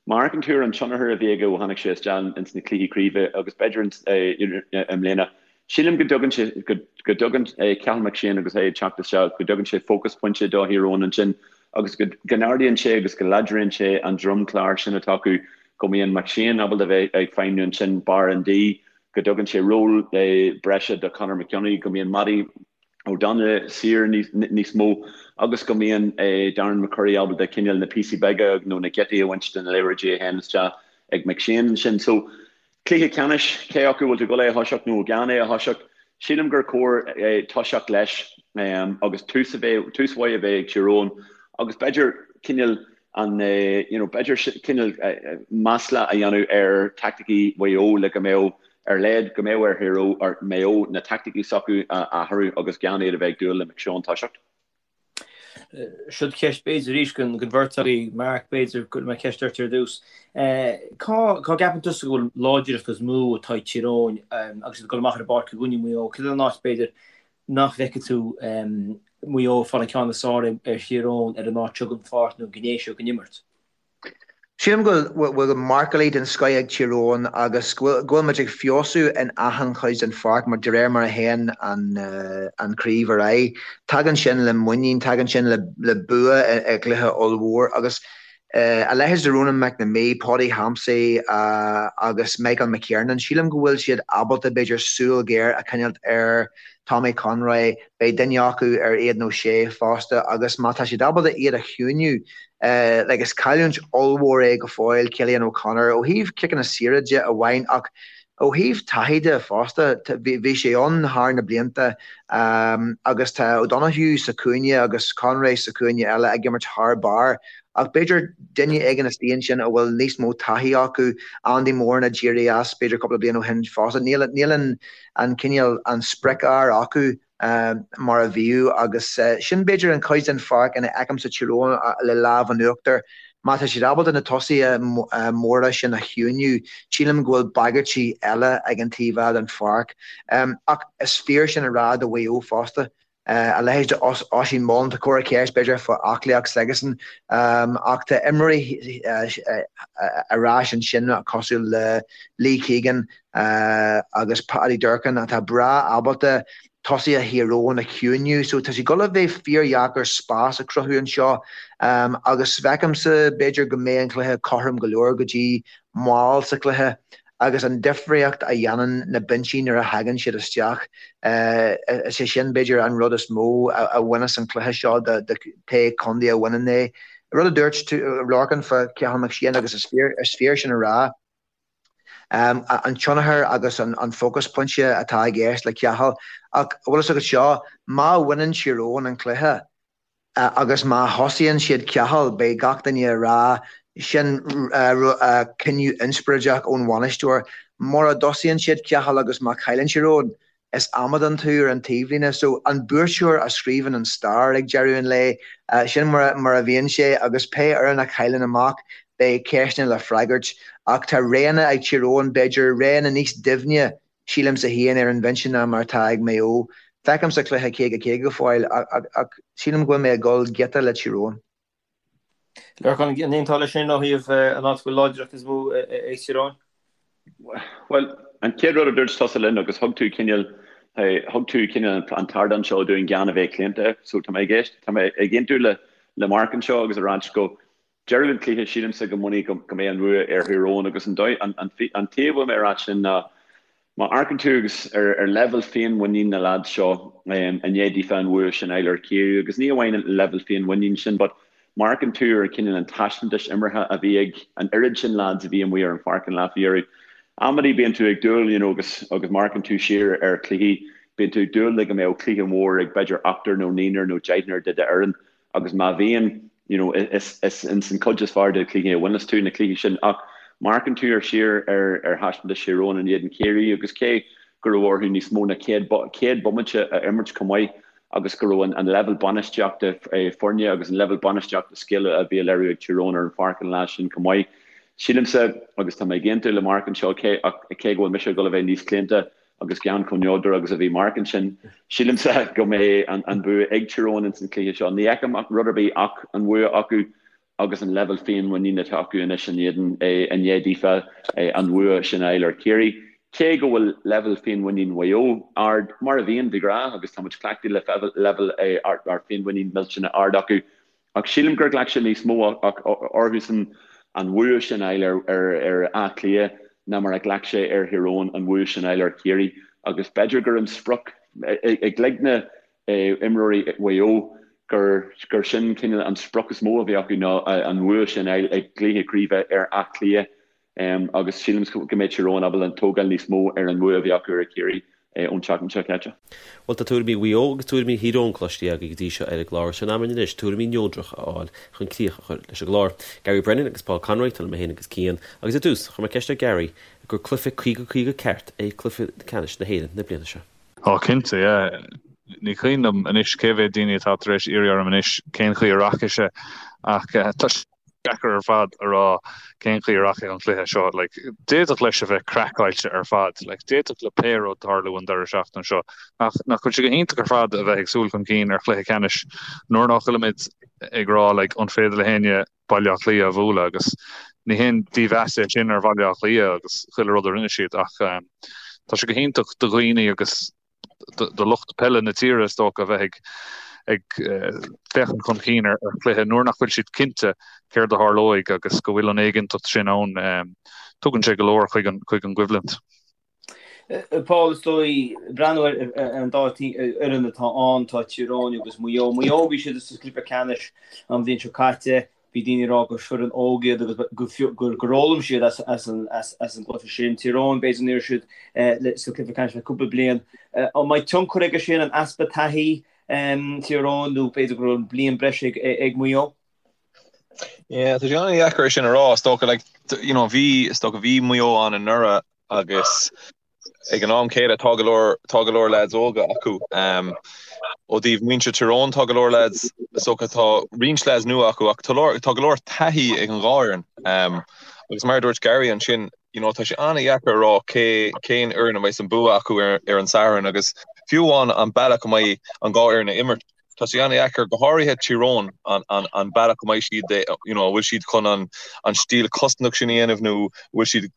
má amharcann tú ar an tionchar a bhí aige ó tháinig sé isteach ins na cluichí craoibhe agus b'fhéidir i mbliana, Sílim go dtugann sé, go dtugann Cathal McShane agus é ag teacht isteach, go dtugann sé focus pointe do Thír Eoghain ansin agus go n-ardaíonn sé agus go láidríonn sé an dromchlár sin atá acu, go mbíonn McShane ábalta bheith ag feidhmniú ansin barr an D, go dtugann sé ról breise do Conor McKeowney, go mbíonn Mattie O'Donnell saor níos mó agus go mbíonn Darren McCurry ábalta cineál na píosaí beaga nó na giotaí a bhaint de na liathróidí a théann isteach ag McShane ansin. So, Cluiche ceannais, cé acu bhfuil tú ag dul é a thoiseacht nó gan é a thoiseacht, sílim gur chóir toiseacht leis agus tús a bheith, tús mhaith a bheith ag Tír Eoghain agus b'fhéidir cineál an, you know, b'fhéidir cineál masla a dhéanamh ar taicticí Mhaigh Eo le go mbeadh ar leid, go mbeadh ar Thír Eoghain, ar Maigh Eo na taicticí s'acu a athrú agus gan iad a bheith ag dúil le McShane toiseacht. Siod ceist b'fhéidir arís don bheirt agaibh, Mark, b'fhéidir go mbeidh ceist ort ar dtús. Cá gceapann tusa go bhfuil láidreacht is mó atá ag Tír Eoghain agus iad ag dul amach ar an bpáirc i gcoinne Mhaigh Eo? Cad é an áit b'fhéidir nach bhfeicfidh tú Maigh Eo ag fáil an ceann is fearr ar Thír Eoghain ar an áit seo den pháirc nó an ghné seo den imirt? Sílim go bhfuil marcálaí den scoith ag Tír Eoghain agus go bhfuil muid ag feabhsú in achan chuid den pháirc mar de réir mar a théann an chraobh ar aghaidh. Tagann sin le muinín, tagann sin le bua i gcluiche ollmhór agus a leithéid de Ronan McNamee, Paudie Hampsey agus Michael McKiernan, sílim go bhfuil siad ábalta b'fhéidir súil ghéar a choinneáilt ar Tommy Conroy, beidh duine acu ar Aidan O'Shea fosta agus má tá siad ábalta iad a chiúiniú, Like is cailliúint ollmhór é go fóill Cillian O'Connor ó thaobh ciceanna saora de amháin ach ó thaobh taithí de fosta. Bhí sé ann thar na blianta agus tá O'Donoghue sa chúinne agus Conroy sa chúinne eile ag imirt thar barr ach b'fhéidir duine éigin istigh ansin a bhfuil níos mó taithí acu, Andy Moran a d'éirigh as b'fhéidir cúpla bliain ó shin fosta. Níl an cineál an sprioc-fhear acu. mar a bhíodh agus sin b'fhéidir an chuid den pháirc ina fheicimse Tír Eoghain le lámh in uachtar. Má tá siad ábalta na tosaithe móra sin a chiúiniú, sílim go bhfuil bagairtí eile ag an taobh eile den pháirc. Ach is fíor sin a rá do Mhaigh Eo fosta. A leithéid de Oisín Mullin, tá corra ceist b'fhéidir fá aclaíocht s'aigesan ach tá imreoirí ar ais ansin cosúil le Lee Keegan, agus Paddy Durcan atá breá ábalta tosaithe Thír Eoghain a chiúiniú so tá sé ag dul a bheith fíordheacair spás a chruthú anseo agus feicimse b'fhéidir go mbeidh an cluiche cothrom go leor go dtí mall sa chluiche agus an difríocht a dhéanann na binsí nuair a thagann siad isteach is é sin b'fhéidir an rud is mó a bhaineas an cluiche seo do pé contae a bhaineann é. Rud a dúirt tú Lorcan fá Cathal McShane agus is fíor sin a rá. an tionchar agus an focus pointe atá i gceist le Cathal. Ach bhfuil fhios agat seo, má bhaineann Tír Eoghain an cluiche agus má thosaíonn siad Cathal, beidh gach duine ag rá sin cinneadh inspioráideach ón bhainisteoir. Mura dtosaíonn siad Cathal agus má chailleann Tír Eoghain, Is amadán tú ar an taobhlíne. So, an buaiteoir a scríobhann an stair ag deireadh an lae. Sin mar a bhíonn sé agus pé fhoireann a chailleann amach, beidh ceisteanna le freagairt. Ach tá roghanna ag Tír Eoghain, b'fhéidir, roghanna níos doimhne, sílimse féin, ar an bhinse ná mar atá ag Maigh Eo. Feicimse cluiche 50-50 go fóill ach sílim go bhfuil mé ag dul giota le Tír Eoghain. Lorcán, an aontófá leis sin ó thaobh an áit a bhfuil láidreacht is mó ag Tír Eoghain? Bhuel, an chéad rud a dúirt tusa linn agus thug tú cineál, thug tú cineál an t-ardán seo dúinn gan a bheith claonta, so tá mé ag éist, tá mé ag aontú le le Mark anseo agus ag ráit go deireadh an chluiche sílimse go mbainfidh go go mbeidh an bhua ar Thír Eoghain agus an dóigh, an an an taobh a bhfuil mé ag ráit sin ná Má amharcann tú agus ar leibhéal féinmhuinín na leaids seo i ndiaidh daofa an bhua sin a fháil ar Chiarraí, agus ní amháin an leibhéal féinmhuinín sin but má amharcann tú ar cineál an taispeántais imeartha a bhí ag an oiread sin leaids a bhí amuigh ar an pháirc an lá faoi dheireadh, amannaí bíonn tú ag dúil you know agus agus má amharcann tú siar ar chluichí bíonn tú ag dúil le go mbeadh cluiche mór ag b'fhéidir ochtar nó naonúr nó deichniúr de d'fhoireann agus má bhíonn, you know, is is ins an cuid is fearr de chluichí a bhaineas tú na cluichí sin ach má amharcann tú ar siar ar ar thaispeántas Thír Eoghain in éadan Chiarraí agus cé go raibh orthu níos mó ná 100 100 bomaite a imirt chomh maith agus go raibh an an leibhéal bainistíochta foirne agus an leibhéal bainistíochta scile a bhí á léiriú ag Tír Eoghain ar an pháirc an lá sin chomh maith. Sílimse, agus tá mé ag aontú le Mark anseo, cé ach cé go bhfuil mise ag dul a bheith níos claonta, agus gan chomh neodrach agus a bhí Mark ansin, sílimse go mbeidh an bua ag Tír Eoghain ins an chluiche seo. Ní fheicim ach rud ar bith ach an bhua acu agus an leibhéal féinmhuinín atá acu anois in éadan, i ndiaidh daofa an bhua sin a fháil ar Chiarraí. Cé go bhfuil leibhéal féinmhuinín Mhaigh Eo ard, mar a bhíonn de ghnáth, agus tá muid cleachtaithe le leibhéal féinmhuinín millteanach ard acu, Ach sílim gur ghlac sé níos mó orthusan an bhua sin a fháil ar Áth Cliath ná mar a ghlac sé ar Thír Eoghain an bhua sin a fháil ar Chiarraí agus b'fhéidir gur an sprioc i gcloigne imreoirí Mhaigh Eo gur gur sin cineál an sprioc is mó a bhí acu ná an bhua sin a fháil i gcluiche craoibhe ar Áth Cliath. Agus sílim go mbeidh Tír Eoghain ábalta tógáil níos mó ar an mbua a bhí acu ar Chiarraí ón tseachtain seo caite. Bhuel, tá tuairimí Mhaigh Eo agus tuairimí Thír Eoghain cloiste agaibh go dtí seo ar an gclár. Sin am anois tuairimí neodracha a fháil chun críoch a chur leis an gclár. Gary Brennan agus Paul Conroy, tá liom mé féin agus Cian. Agus ar dtús, chuir mé ceist ar Gary gur cluiche 50-50 ceart é cluiche ceannais na hÉireann na bliana seo. Á cinnte, yeah. Ní cuimhin liom anois cé mhéad daoine atá tar éis iarraidh orm anois cén chaoi a rachaidh sé ach tá sé deacair ar fad a rá cén chaoi a rachaidh an cluiche seo. Like, d'fhéadfadh leis a bheith craiceáilte ar fad. Like, d'fhéadfadh le pé rud tarlú an deireadh seachtaine seo. Ach nach bhfuil sé go hiontach ar fad a bheith ag súil chun cinn ar chluiche ceannais nuair nach bhfuilimid ag rá like, an féidir le héinne Baile Átha Cliath a bhualadh agus ní haon dímheas é sin ar Bhaile Átha Cliath agus chuile rud a rinne siad ach um, tá sé go hiontach do dhaoine agus do lucht peile na tíre, is dócha, a bheith ag féachaint chun cinn ar chluiche nuair nach bhfuil siad cinnte céard a tharlóidh agus go bhfuil an éiginnteacht sin ann. Tugann sé go leor chuig an gcoimhlint. Paul, is dóigh, breathnú ar an dá fhoireann atá ann, tá Tír Eoghain agus Maigh Eo. Maigh Eo, bhí siad sa gcluiche ceannais an bhliain seo caite. Bhí daoine ag rá gur foireann óg iad agus gur fhoghlaim siad as an gcluiche sin. Tír Eoghain, b'fhéidir ní raibh siad sa chluiche ceannais le cúpla bliain. An mbeidh tionchar aige sin, an easpa taithí Tír Eoghain nó b'fhéidir go raibh bliain breise ag Maigh Eo? Yeah, tá sé an-dheacair é sin a rá. Is dócha, like, you know, bhí, is dócha, bhí Maigh Eo ann anuraidh agus Ag an am céanna, tá go leor, tá go leor leaids óga acu. Ó thaobh muintir Tír Eoghain, tá go leor leaids, is dócha, tá roinnt leaids nua acu ach tá leor, tá go leor taithí ag an dhá fhoireann. Agus mar a dúirt Gary ansin, you know, tá sé an-dheacair a rá cé, cén fhoireann a mbeidh an bua acu ar, ar an Satharn agus fiú amháin an bealach a mbeidh an dhá fhoireann ag imirt. Tá sé an-dheacair, go háirithe Tír Eoghain, an bealach go mbeidh siad, you know, an bhfuil siad chun an stíl cosantach sin a dhéanamh nó an bhfuil siad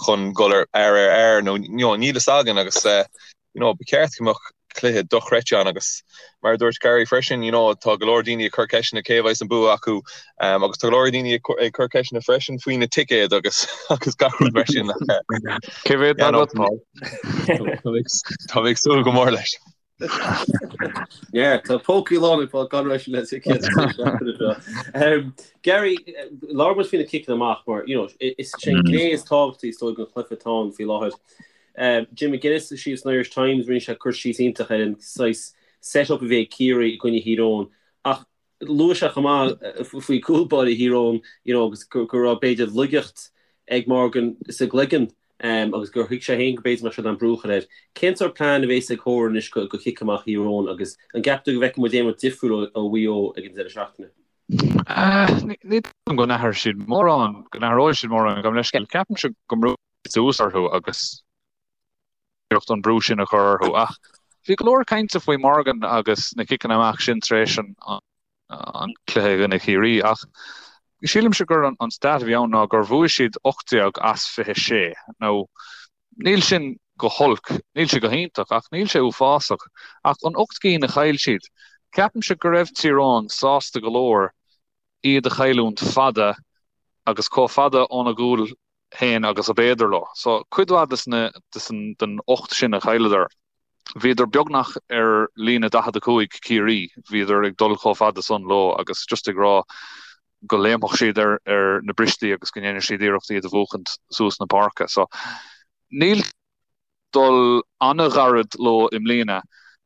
chun dul ar fhear ar fhear nó, you know, níl fhios againn agus, you know, ba cheart go mbeadh cluiche dochreidte ann agus mar a dúirt Gary freisin, you know, tá go leor daoine ag cur ceisteanna cé a bheas an bua acu agus tá go leor daoine ag cur ceisteanna freisin faoi na ticéid agus agus gach rud mar sin. Cé mhéad atá agat, Paul? Tá mé ag súil go mór leis. Yeah, tá pócaí lán ag Paul Conroy le ticéid seo. Gary, labhair muid faoi na ciceanna amach mar, you know, is é an gné is tábhachtaí is dóigh den chluiche atá ann faoi láthair. Jim McGuinness síos san Irish Times, rinne sé cur síos iontach ar an saghas set-up a bhí ag Ciarraí i gcoinne Thír Eoghain ach Luaigh sé chomh maith faoi chúl báire Thír Eoghain you know agus go raibh b'fhéidir laigeacht ag Morgan sa gcloigeann agus gur thuig sé féin go b'fhéidir mbeadh sé in ann brú a chur air. Cén sórt plean a bhéas ag Horan anois go chic amach Thír Eoghain agus an gceapann tú go bhfeicfidh muid aon rud difriúil ó Mhaigh Eo ag an deireadh seachtaine? Ní dóigh liom go n-athróidh siad mórán, go n-athróidh siad mórán, gabh mo leithscéal. Ceapaimse go mbrúfaidh siad suas orthu agus iarracht an brú sin a chur orthu ach. Bhí go leor cainte faoi Morgan agus na ciceanna amach sin tar éis an an cluiche i gcoinne Chiarraí ach sílimse gur an stat a bhí ann ná gur bhuaigh siad 18 as 26. Now níl sin go holc, níl sé go hiontach ach níl sé uafásach. Ach an 8 gcinn a chaill siad, ceapaimse go raibh Tír Eoghain sásta go leor iad a chailliúint fada agus chomh fada óna gcúl féin agus ab fhéidir leo. So cuid mhaith des na den 8 sin a chailleadar, bhíodar beagnach ar líne 45 Ciarraí, bhíodar ag dul chomh fada san leo agus just ag rá go léimfeadh siad ar ar na bristí agus go ndéanfadh siad iarracht iad a bhuachaint suas na páirce. So níl dul an-ghairid leo i mbliana.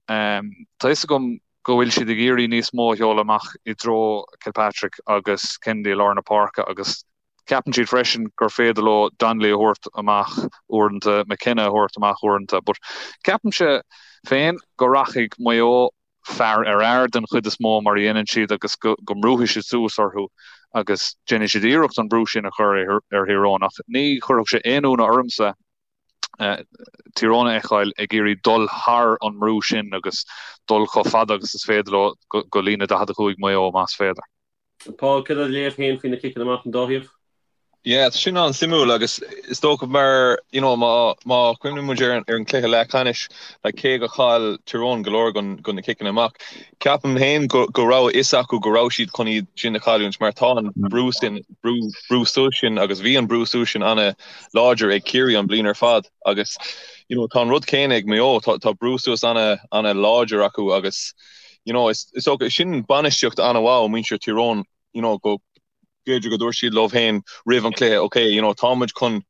Tá fhios agam go bhfuil siad ag iarraidh níos mó a sheoladh amach i dtreo Kilpatrick agus Kennedy i lár na páirce agus Ceapann siad freisin gur féidir leo Donnelly a thabhairt amach uaireanta, McKenna a thabhairt amach uaireanta, but ceapaimse féin go rachaidh Maigh Eo fear ar fhear den chuid is mó mar a dhéanann siad agus go mbrúfaidh siad suas orthu agus déanfaidh siad iarracht an brú sin a chur ar Thír Eoghain ach ní chuirfeadh sé aon ionadh ormsa Tír Eoghain a fheiceáil ag iarraidh dul thar an mbrú sin agus dul chomh fada agus is féidir leo go líne 45 Maigh Eo más féidir. Paul, céard é do léamh féin faoi na ciceanna amach an dá thaobh? Yeah, tá sin an-suimiúil agus is dócha mar, you know, má, má chuimhníonn muid ar an, ar an cluiche leathcheannais, like, cé go chaill Tír Eoghain go leor den, den na ciceanna amach, ceapaim féin go, go raibh a fhios acu go raibh siad chun iad sin a chailliúint mar tá an brú sin, brú, brú suas sin agus bhí an brú suas sin ana-láidir ag Ciarraí an bliain ar fad agus, you know, tá an rud céanna ag Maigh Eo, tá, tá brú suas ana, ana-láidir acu agus, you know, is dócha, sin bainistíocht an-mhaith ó muintir Tír Eoghain, you know, go b'fhéidir go dúirt siad leo féin roimh an cluiche, ok, you know, tá muid chun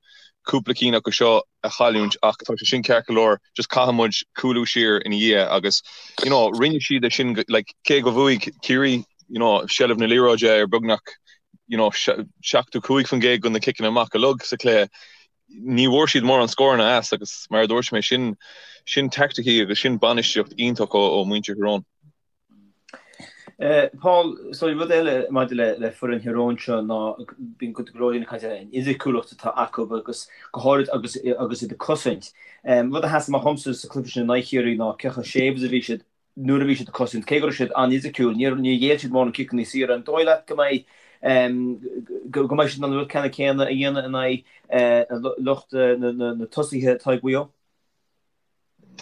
cúpla cinn acu seo a chailliúint ach tá sé sin ceart go leor, just caithfidh muid cúlú siar ina dhiaidh agus, you know, rinne siad é sin, like, cé go bhuaigh Ciarraí, you know, seilbh na liathróide ar beagnach, you know, 75% de na ciceanna amach uilig sa chluiche, ní bhfuair siad mórán scóranna as agus mar a dúirt mé, sin sin teaicticí agus sin bainistíocht iontach ó ó muintir Thír Eoghain. Paul, so rud eile maidir le le foireann Thír Eoghain seo ná bíonn go leor daoine ag caint ar an fhisiciúlacht atá acu agus go háirid agus agus iad ag cosaint. Rud a sheas amach dhomsa sa chluiche sin in aghaidh Chiarraí ná cé chomh séimh is a bhí siad nuair a bhí siad ag cosaint, cé go raibh siad an-fhisiciúil, níor ghéill siad mórán ciceanna saora. An dóigh leat go mbeidh go mbeidh siad in ann an rud ceannann céanna a dhéanamh in aghaidh lucht na tosaithe atá ag Mhaigh Eo?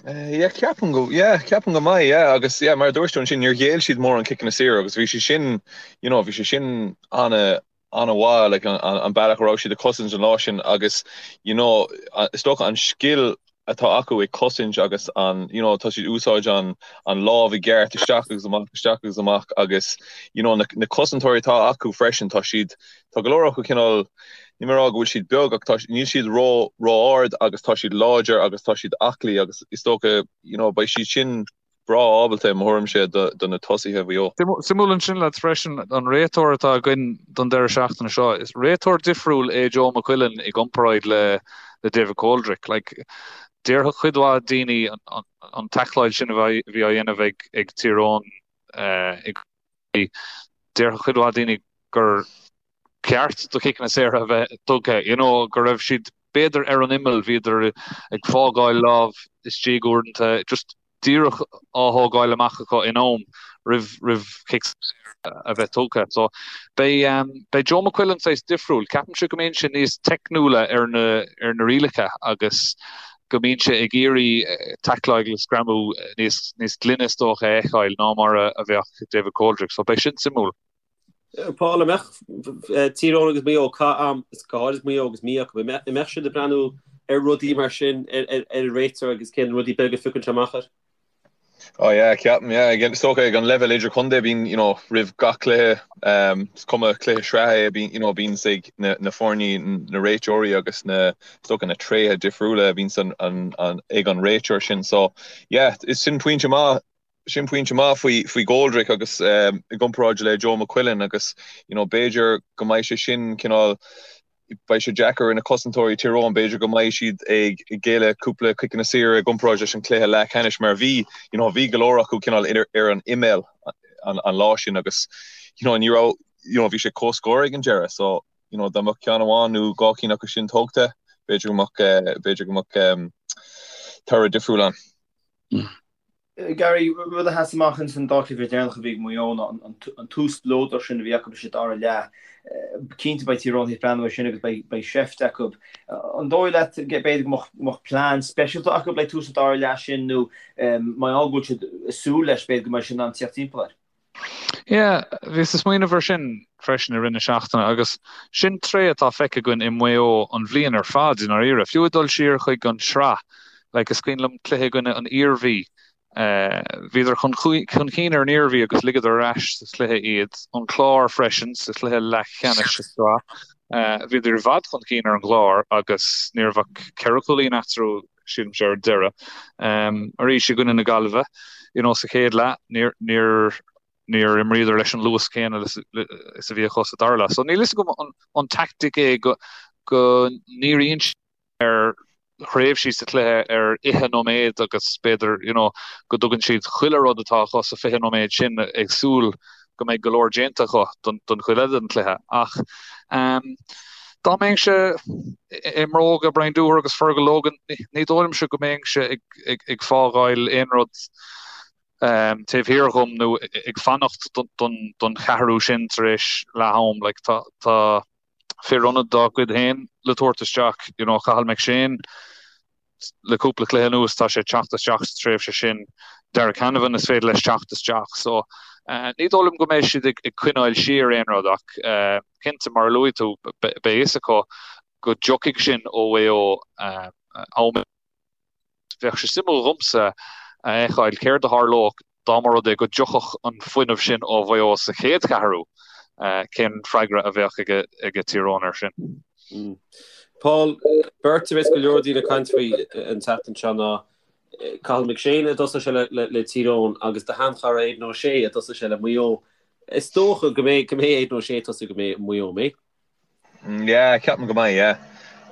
Yeah, ceapaim go, yeah, ceapaim go mbeidh, yeah, agus yeah, mar a dúirt tú ansin, níor ghéill siad mórán ciceanna saora agus bhí sé sin, you know, bhí sé sin ana, ana-mhaith, like, an, an bealach a raibh siad ag cosaint an lá sin agus, you know, is dócha an scil atá acu ag cosaint agus an, you know, tá siad úsáid an, an lámh i gceart isteach agus amach, isteach agus amach agus, you know, na, na cosantóirí atá acu freisin, tá siad, tá go leor acu cineál, níl mé ag rá go bhfuil siad beag ach tá, níl siad ró, ró-ard agus tá siad láidir agus tá siad aclaí agus is dócha, you know, beidh siad sin, breá ábalta, i mo thuairimse, do na tosaithe Mhaigh Eo. Suimiúil ansin lads freisin, an réiteoir atá againn don deireadh seachtaine seo, is réiteoir difriúil é Joe McQuillan i gcomparáid le David Coldrick. Like, déarfadh cuid mhaith daoine an taicleáil sin a bhí á dhéanamh ag Tír Eoghain i déarfadh cuid mhaith daoine gur ceart do chiceanna saora a bheith tugtha, you know, go raibh siad b'fhéidir ar an imeall, bhíodar ag fágáil lámh istigh uaireanta, just díreach á thógáil amach acu in am roimh roimh chic saor a bheith tugtha. So beidh um, beidh Joe McQuillan saghas difriúil. Ceapaimse go mbíonn sé níos teicniúla ar na ar na rialacha agus go mbíonn sé ag iarraidh taicleáil agus greamú níos níos glaine is dócha a fheiceáil ná mar a a bheadh David Coldrick. So beidh sin suimiúil. Paul, an mbeadh Tír Eoghain agus Maigh Eo, is go háirid Maigh Eo agus mí acu, an mbeadh siad ag breathnú ar rudaí mar sin ar an réiteoir agus cén rudaí beaga a phiocann sé amach air? Oh yeah, ceapaim, yeah. Again, is dócha ag an leibhéal idirchontae bíonn, you know, roimh gach cluiche, um, is cuma cluiche sraithe é, bíonn, you know, bíonn ag na, na foirne, na réiteoirí agus na, is dócha na tréithe difriúla a bhíonn an, an, an, ag an réiteoir sin. So, yeah, is sin pointe maith Sin pointe maith faoi faoi Goldrick agus i gcomparáid le Joe McQuillan agus you know b'fhéidir go mbeidh sé sin cineál beidh sé deacair ar na cosantóirí Tír Eoghain b'fhéidir go mbeidh siad ag géilleadh cúpla ciceanna saora i gcomparáid leis an cluiche leathcheannais mar bhí you know bhí go leor acu cineál ar an imeall an, an lá sin agus you know ní raibh you know bhí sé comhscór ag an deireadh so you know dá mbeadh ceann amháin nó dhá cinn acu sin tógtha b'fhéidir go mbeadh b'fhéidir go mbeadh um, toradh difriúil ann. Gary, rud a sheas amach ins an dá chluiche deireanach a bhí ag Maigh Eo ná an tús spleodrach sin a bhí acu sa dara leath. Cinnte beidh Tír Eoghain ag breathnú air sin agus beidh seift acu. An dóigh leat b'fhéidir go mbeadh plean speisialta acu le tús an dara leath sin nó mar gheall go bhfuil siad ag súil leis b'fhéidir go mbeidh siad in ann tíocht timpeall air? Yeah, bhíos ag smaoineamh air sin freisin i rith na seachtaine agus sin tréith atá feicthe againn i Maigh Eo an bhliain ar fad i ndáiríre. Fiú ag dul siar chuig an tsraith, like is cuimhin liom cluiche i gcoinne an Iarmhí, bhíodar chun chun cinn ar an Iarmhí agus ligeadar ar ais sa chluiche iad. An Clár freisin sa chluiche leathcheannais sa tsraith, bhíodar i bhfad chun cinn ar an gClár agus ní raibh ach ceithre chúilín eatarthu sílimse ar deireadh. Arís i gcoinne na Gaillimhe, you know, sa chéad leath, níor, níor, níor imríodar leis an luas céanna is a bhí acu sa dara leath. So níl fhios agam an, an tactic é go, go ndíríonn siad ar thréimhsí sa chluiche ar fhiche nóiméad agus b'fhéidir, you know, go dtugann siad chuile rud atá acu sa 20 nóiméad sin ag súil go mbeidh go leor déanta acu don chuid eile den chluiche. Ach dá mbeinnse i mbróga Brian Dooher agus Fergal Logan, ní dóigh liomsa go mbeinnse ag fágáil aon rud taobh thiar dhom nó ag fanacht don cheathrú sin tar éis leath am. Like, tá fir ionaid dá gcuid féin le tabhairt isteach, you know, Cathal McShane, le cúpla cluiche anuas tá sé ag teacht isteach sa tréimhse sin. Darragh Canavan is féidir leis teacht isteach. So ní dóigh liom go mbeidh siad ag coinneáil siar aon rud ach cinnte mar a luaigh tú beidh fhios acu go dtiocfaidh sin ó Mhaigh Eo am. Bheadh sé suimiúil dhomsa a fheiceáil céard a tharlódh dá mba rud é go dtiocfadh an fuinneamh sin ó Mhaigh Eo sa chéad cheathrú, cén freagra a bheadh ag Tír Eoghain air sin? Paul, beirt a bheas go leor daoine ag caint faoi an tseachtain seo ná Cathal McShane a dtosóidh sé le Tír Eoghain agus do sheanchara Aidan O'Shea a dtosóidh sé le Maigh Eo. Is dócha go mbeidh Aidan O'Shea ag tosú do Mhaigh Eo, an mbeidh? Yeah, ceapaim go mbeidh, yeah.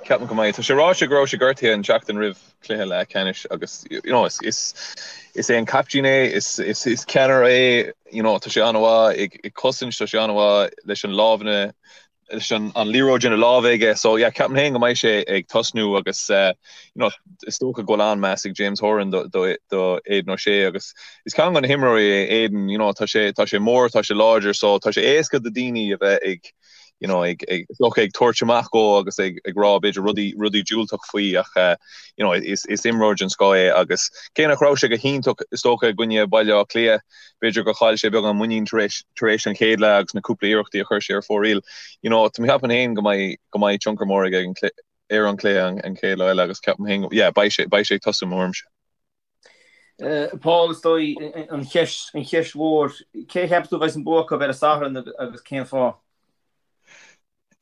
Ceapaim go mbeidh. Tá sé ráite go raibh sé gortaithe an tseachtain roimh cluiche leathcheannais agus you know, is, is, is é an captaen é, is, is, is ceannaire é, you know, tá sé an-mhaith ag, ag cosaint, tá sé an-mhaith leis an lámhanna, leis an, an liathróid ina lámh aige. So yeah, ceapaim féin go mbeidh sé ag tosnú agus uh, you know, is dócha go bhfuil an-meas ag James Horan do, do, do Aidan O'Shea agus is ceann de na himreoirí é Aidan, you know, tá sé, tá sé mór, tá sé láidir, so tá sé éasca do daoine a bheith ag you know, ag, ag, is dócha ag tabhairt amach dhó agus ag, ag rá b'fhéidir rudaí, rudaí diúltach faoi ach eh, you know, is, is imreoir den scoth é agus cé nach raibh sé go hiontach is dócha i gcoinne Baile Átha Cliath, b'fhéidir gur chaill sé beagán muinín tar éis, tar éis an chéad leath agus na cúpla iarrachtaí a chuir sé ar fóraoil. You know, tá mé ag ceapadh féin go mbeidh, go mbeidh tionchar mór aige an, ar an cluiche an, an chéad lá eile agus ceapaim féin, yeah, beidh sé, beidh sé ag tosú mo thuairimse. Paul, is dóigh, an cheist, an cheist mhór, cé a cheapas tú a bheas an bua acu ar an Satharn agus cén fáth?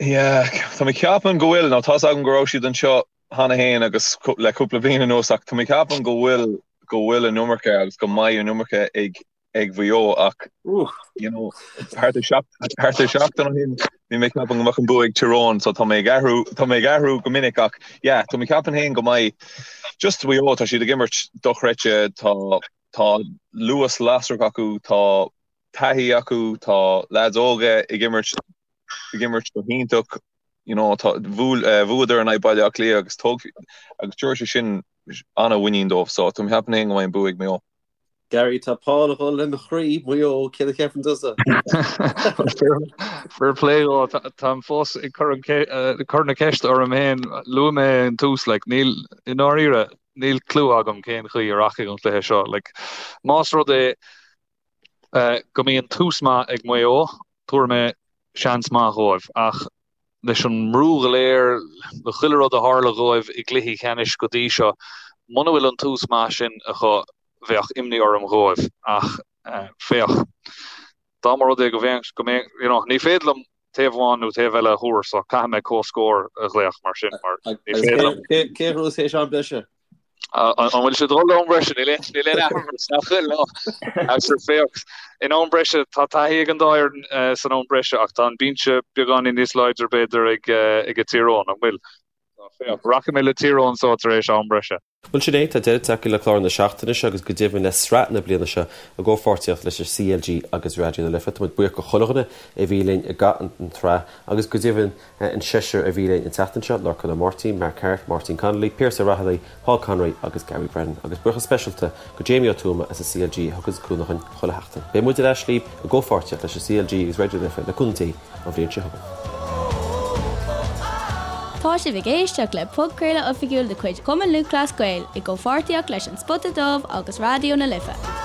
Yeah, tá mé ag ceapadh go bhfuil, nó tá's agam go raibh siad anseo cheana féin agus le cúpla bliain anuas ach tá mé ag ceapadh go bhfuil, go bhfuil an iomarca agus go mbeidh an iomarca ag ag Mhaigh Eo ach you know thart ar thart ar seachtain ó shin bhí mé ag ceapadh go mbeadh an bua ag Tyrone so tá mé ag athrú tá mé ag athrú go minic ach yeah tá mé ag ceapadh féin go mbeidh just Mhaigh Eo tá siad ag imirt dochreidte tá tá luas lasrach acu tá taithí acu tá lads óga ag imirt ag imirt go hiontach you know tá bhuail eh, bhuadar in aghaidh Baile Átha Cliath agus tóg agus tabharfaidh sé sin an-mhuinín dóibh so tá mé ag ceapadh féin go mbeidh an bua ag Maigh Eo. Gary, tá Paul ag dul le mo chroí, Maigh Eo, céard a cheapann tusa? Fair play dhó, táim fós ag cur cur na ceiste orm féin, luaigh mé an tús, like, níl, i ndáiríre, níl clue agam cén chaoi a rachaidh an cluiche seo. Like, más rud é go mbíonn tús maith ag Maigh Eo, tabharfaidh mé seans maith dhóibh, ach leis an mbrú go léir, le chuile rud a tharla dhóibh i gcluichí ceannais go dtí seo, muna bhfuil an tús maith sin acu, bheadh imní orm dhóibh. Ach féach, dá mba rud é go mbeadh, go mbeadh, you know, ní féidir liom taobh amháin nó taobh eile a thuar, so caithfidh mé comhscór a ghlaoch mar sin, mar ní féidir liom. Cé a ghnóthós théis am breise? An bhfuil sé ag dul am breise? Níl aon athrú nach bhfuil no. Sure féach, in am breise tá taithí ag an dá fhoireann san am breise ach tá an binse beagáinín níos láidre b'fhéidir ag ag Tír Eoghain, an bhfuil? Féach, rachaidh mé le Tír Eoghain so tar éis am breise. Bhuel sin é, tá deireadh tagtha le clár na seachtaine seo agus go deimhin le sraith na bliana seo i gcomhpháirtíocht leis an CLG agus Raidió na Life. Tá muid buíoch go chuile dhuine a bhí linn i gcaitheamh an tsraith agus go deimhin an seisear a bhí linn an tseachtain seo, Lorcán Ó Máirtín, Mark Harte, Máirtín Connolly, Piaras Ó Raghallaigh, Paul Conroy agus Gary Brennan. Agus buíochas speisialta go Jamie Ó Tuama as an CLG a thuganns cúnamh dhúinn chuile sheachtain. Beidh muid ar ais libh i gcomhpháirtíocht leis an CLG agus Raidió na Life le cúnamh Dé an bhliain seo chugainn. Tá sibh ag éisteacht le podchraoladh oifigiúil de chuid Chumann Lúthchleas Gael i gcomhpháirtíocht leis An Spota Dubh agus Raidió na Life.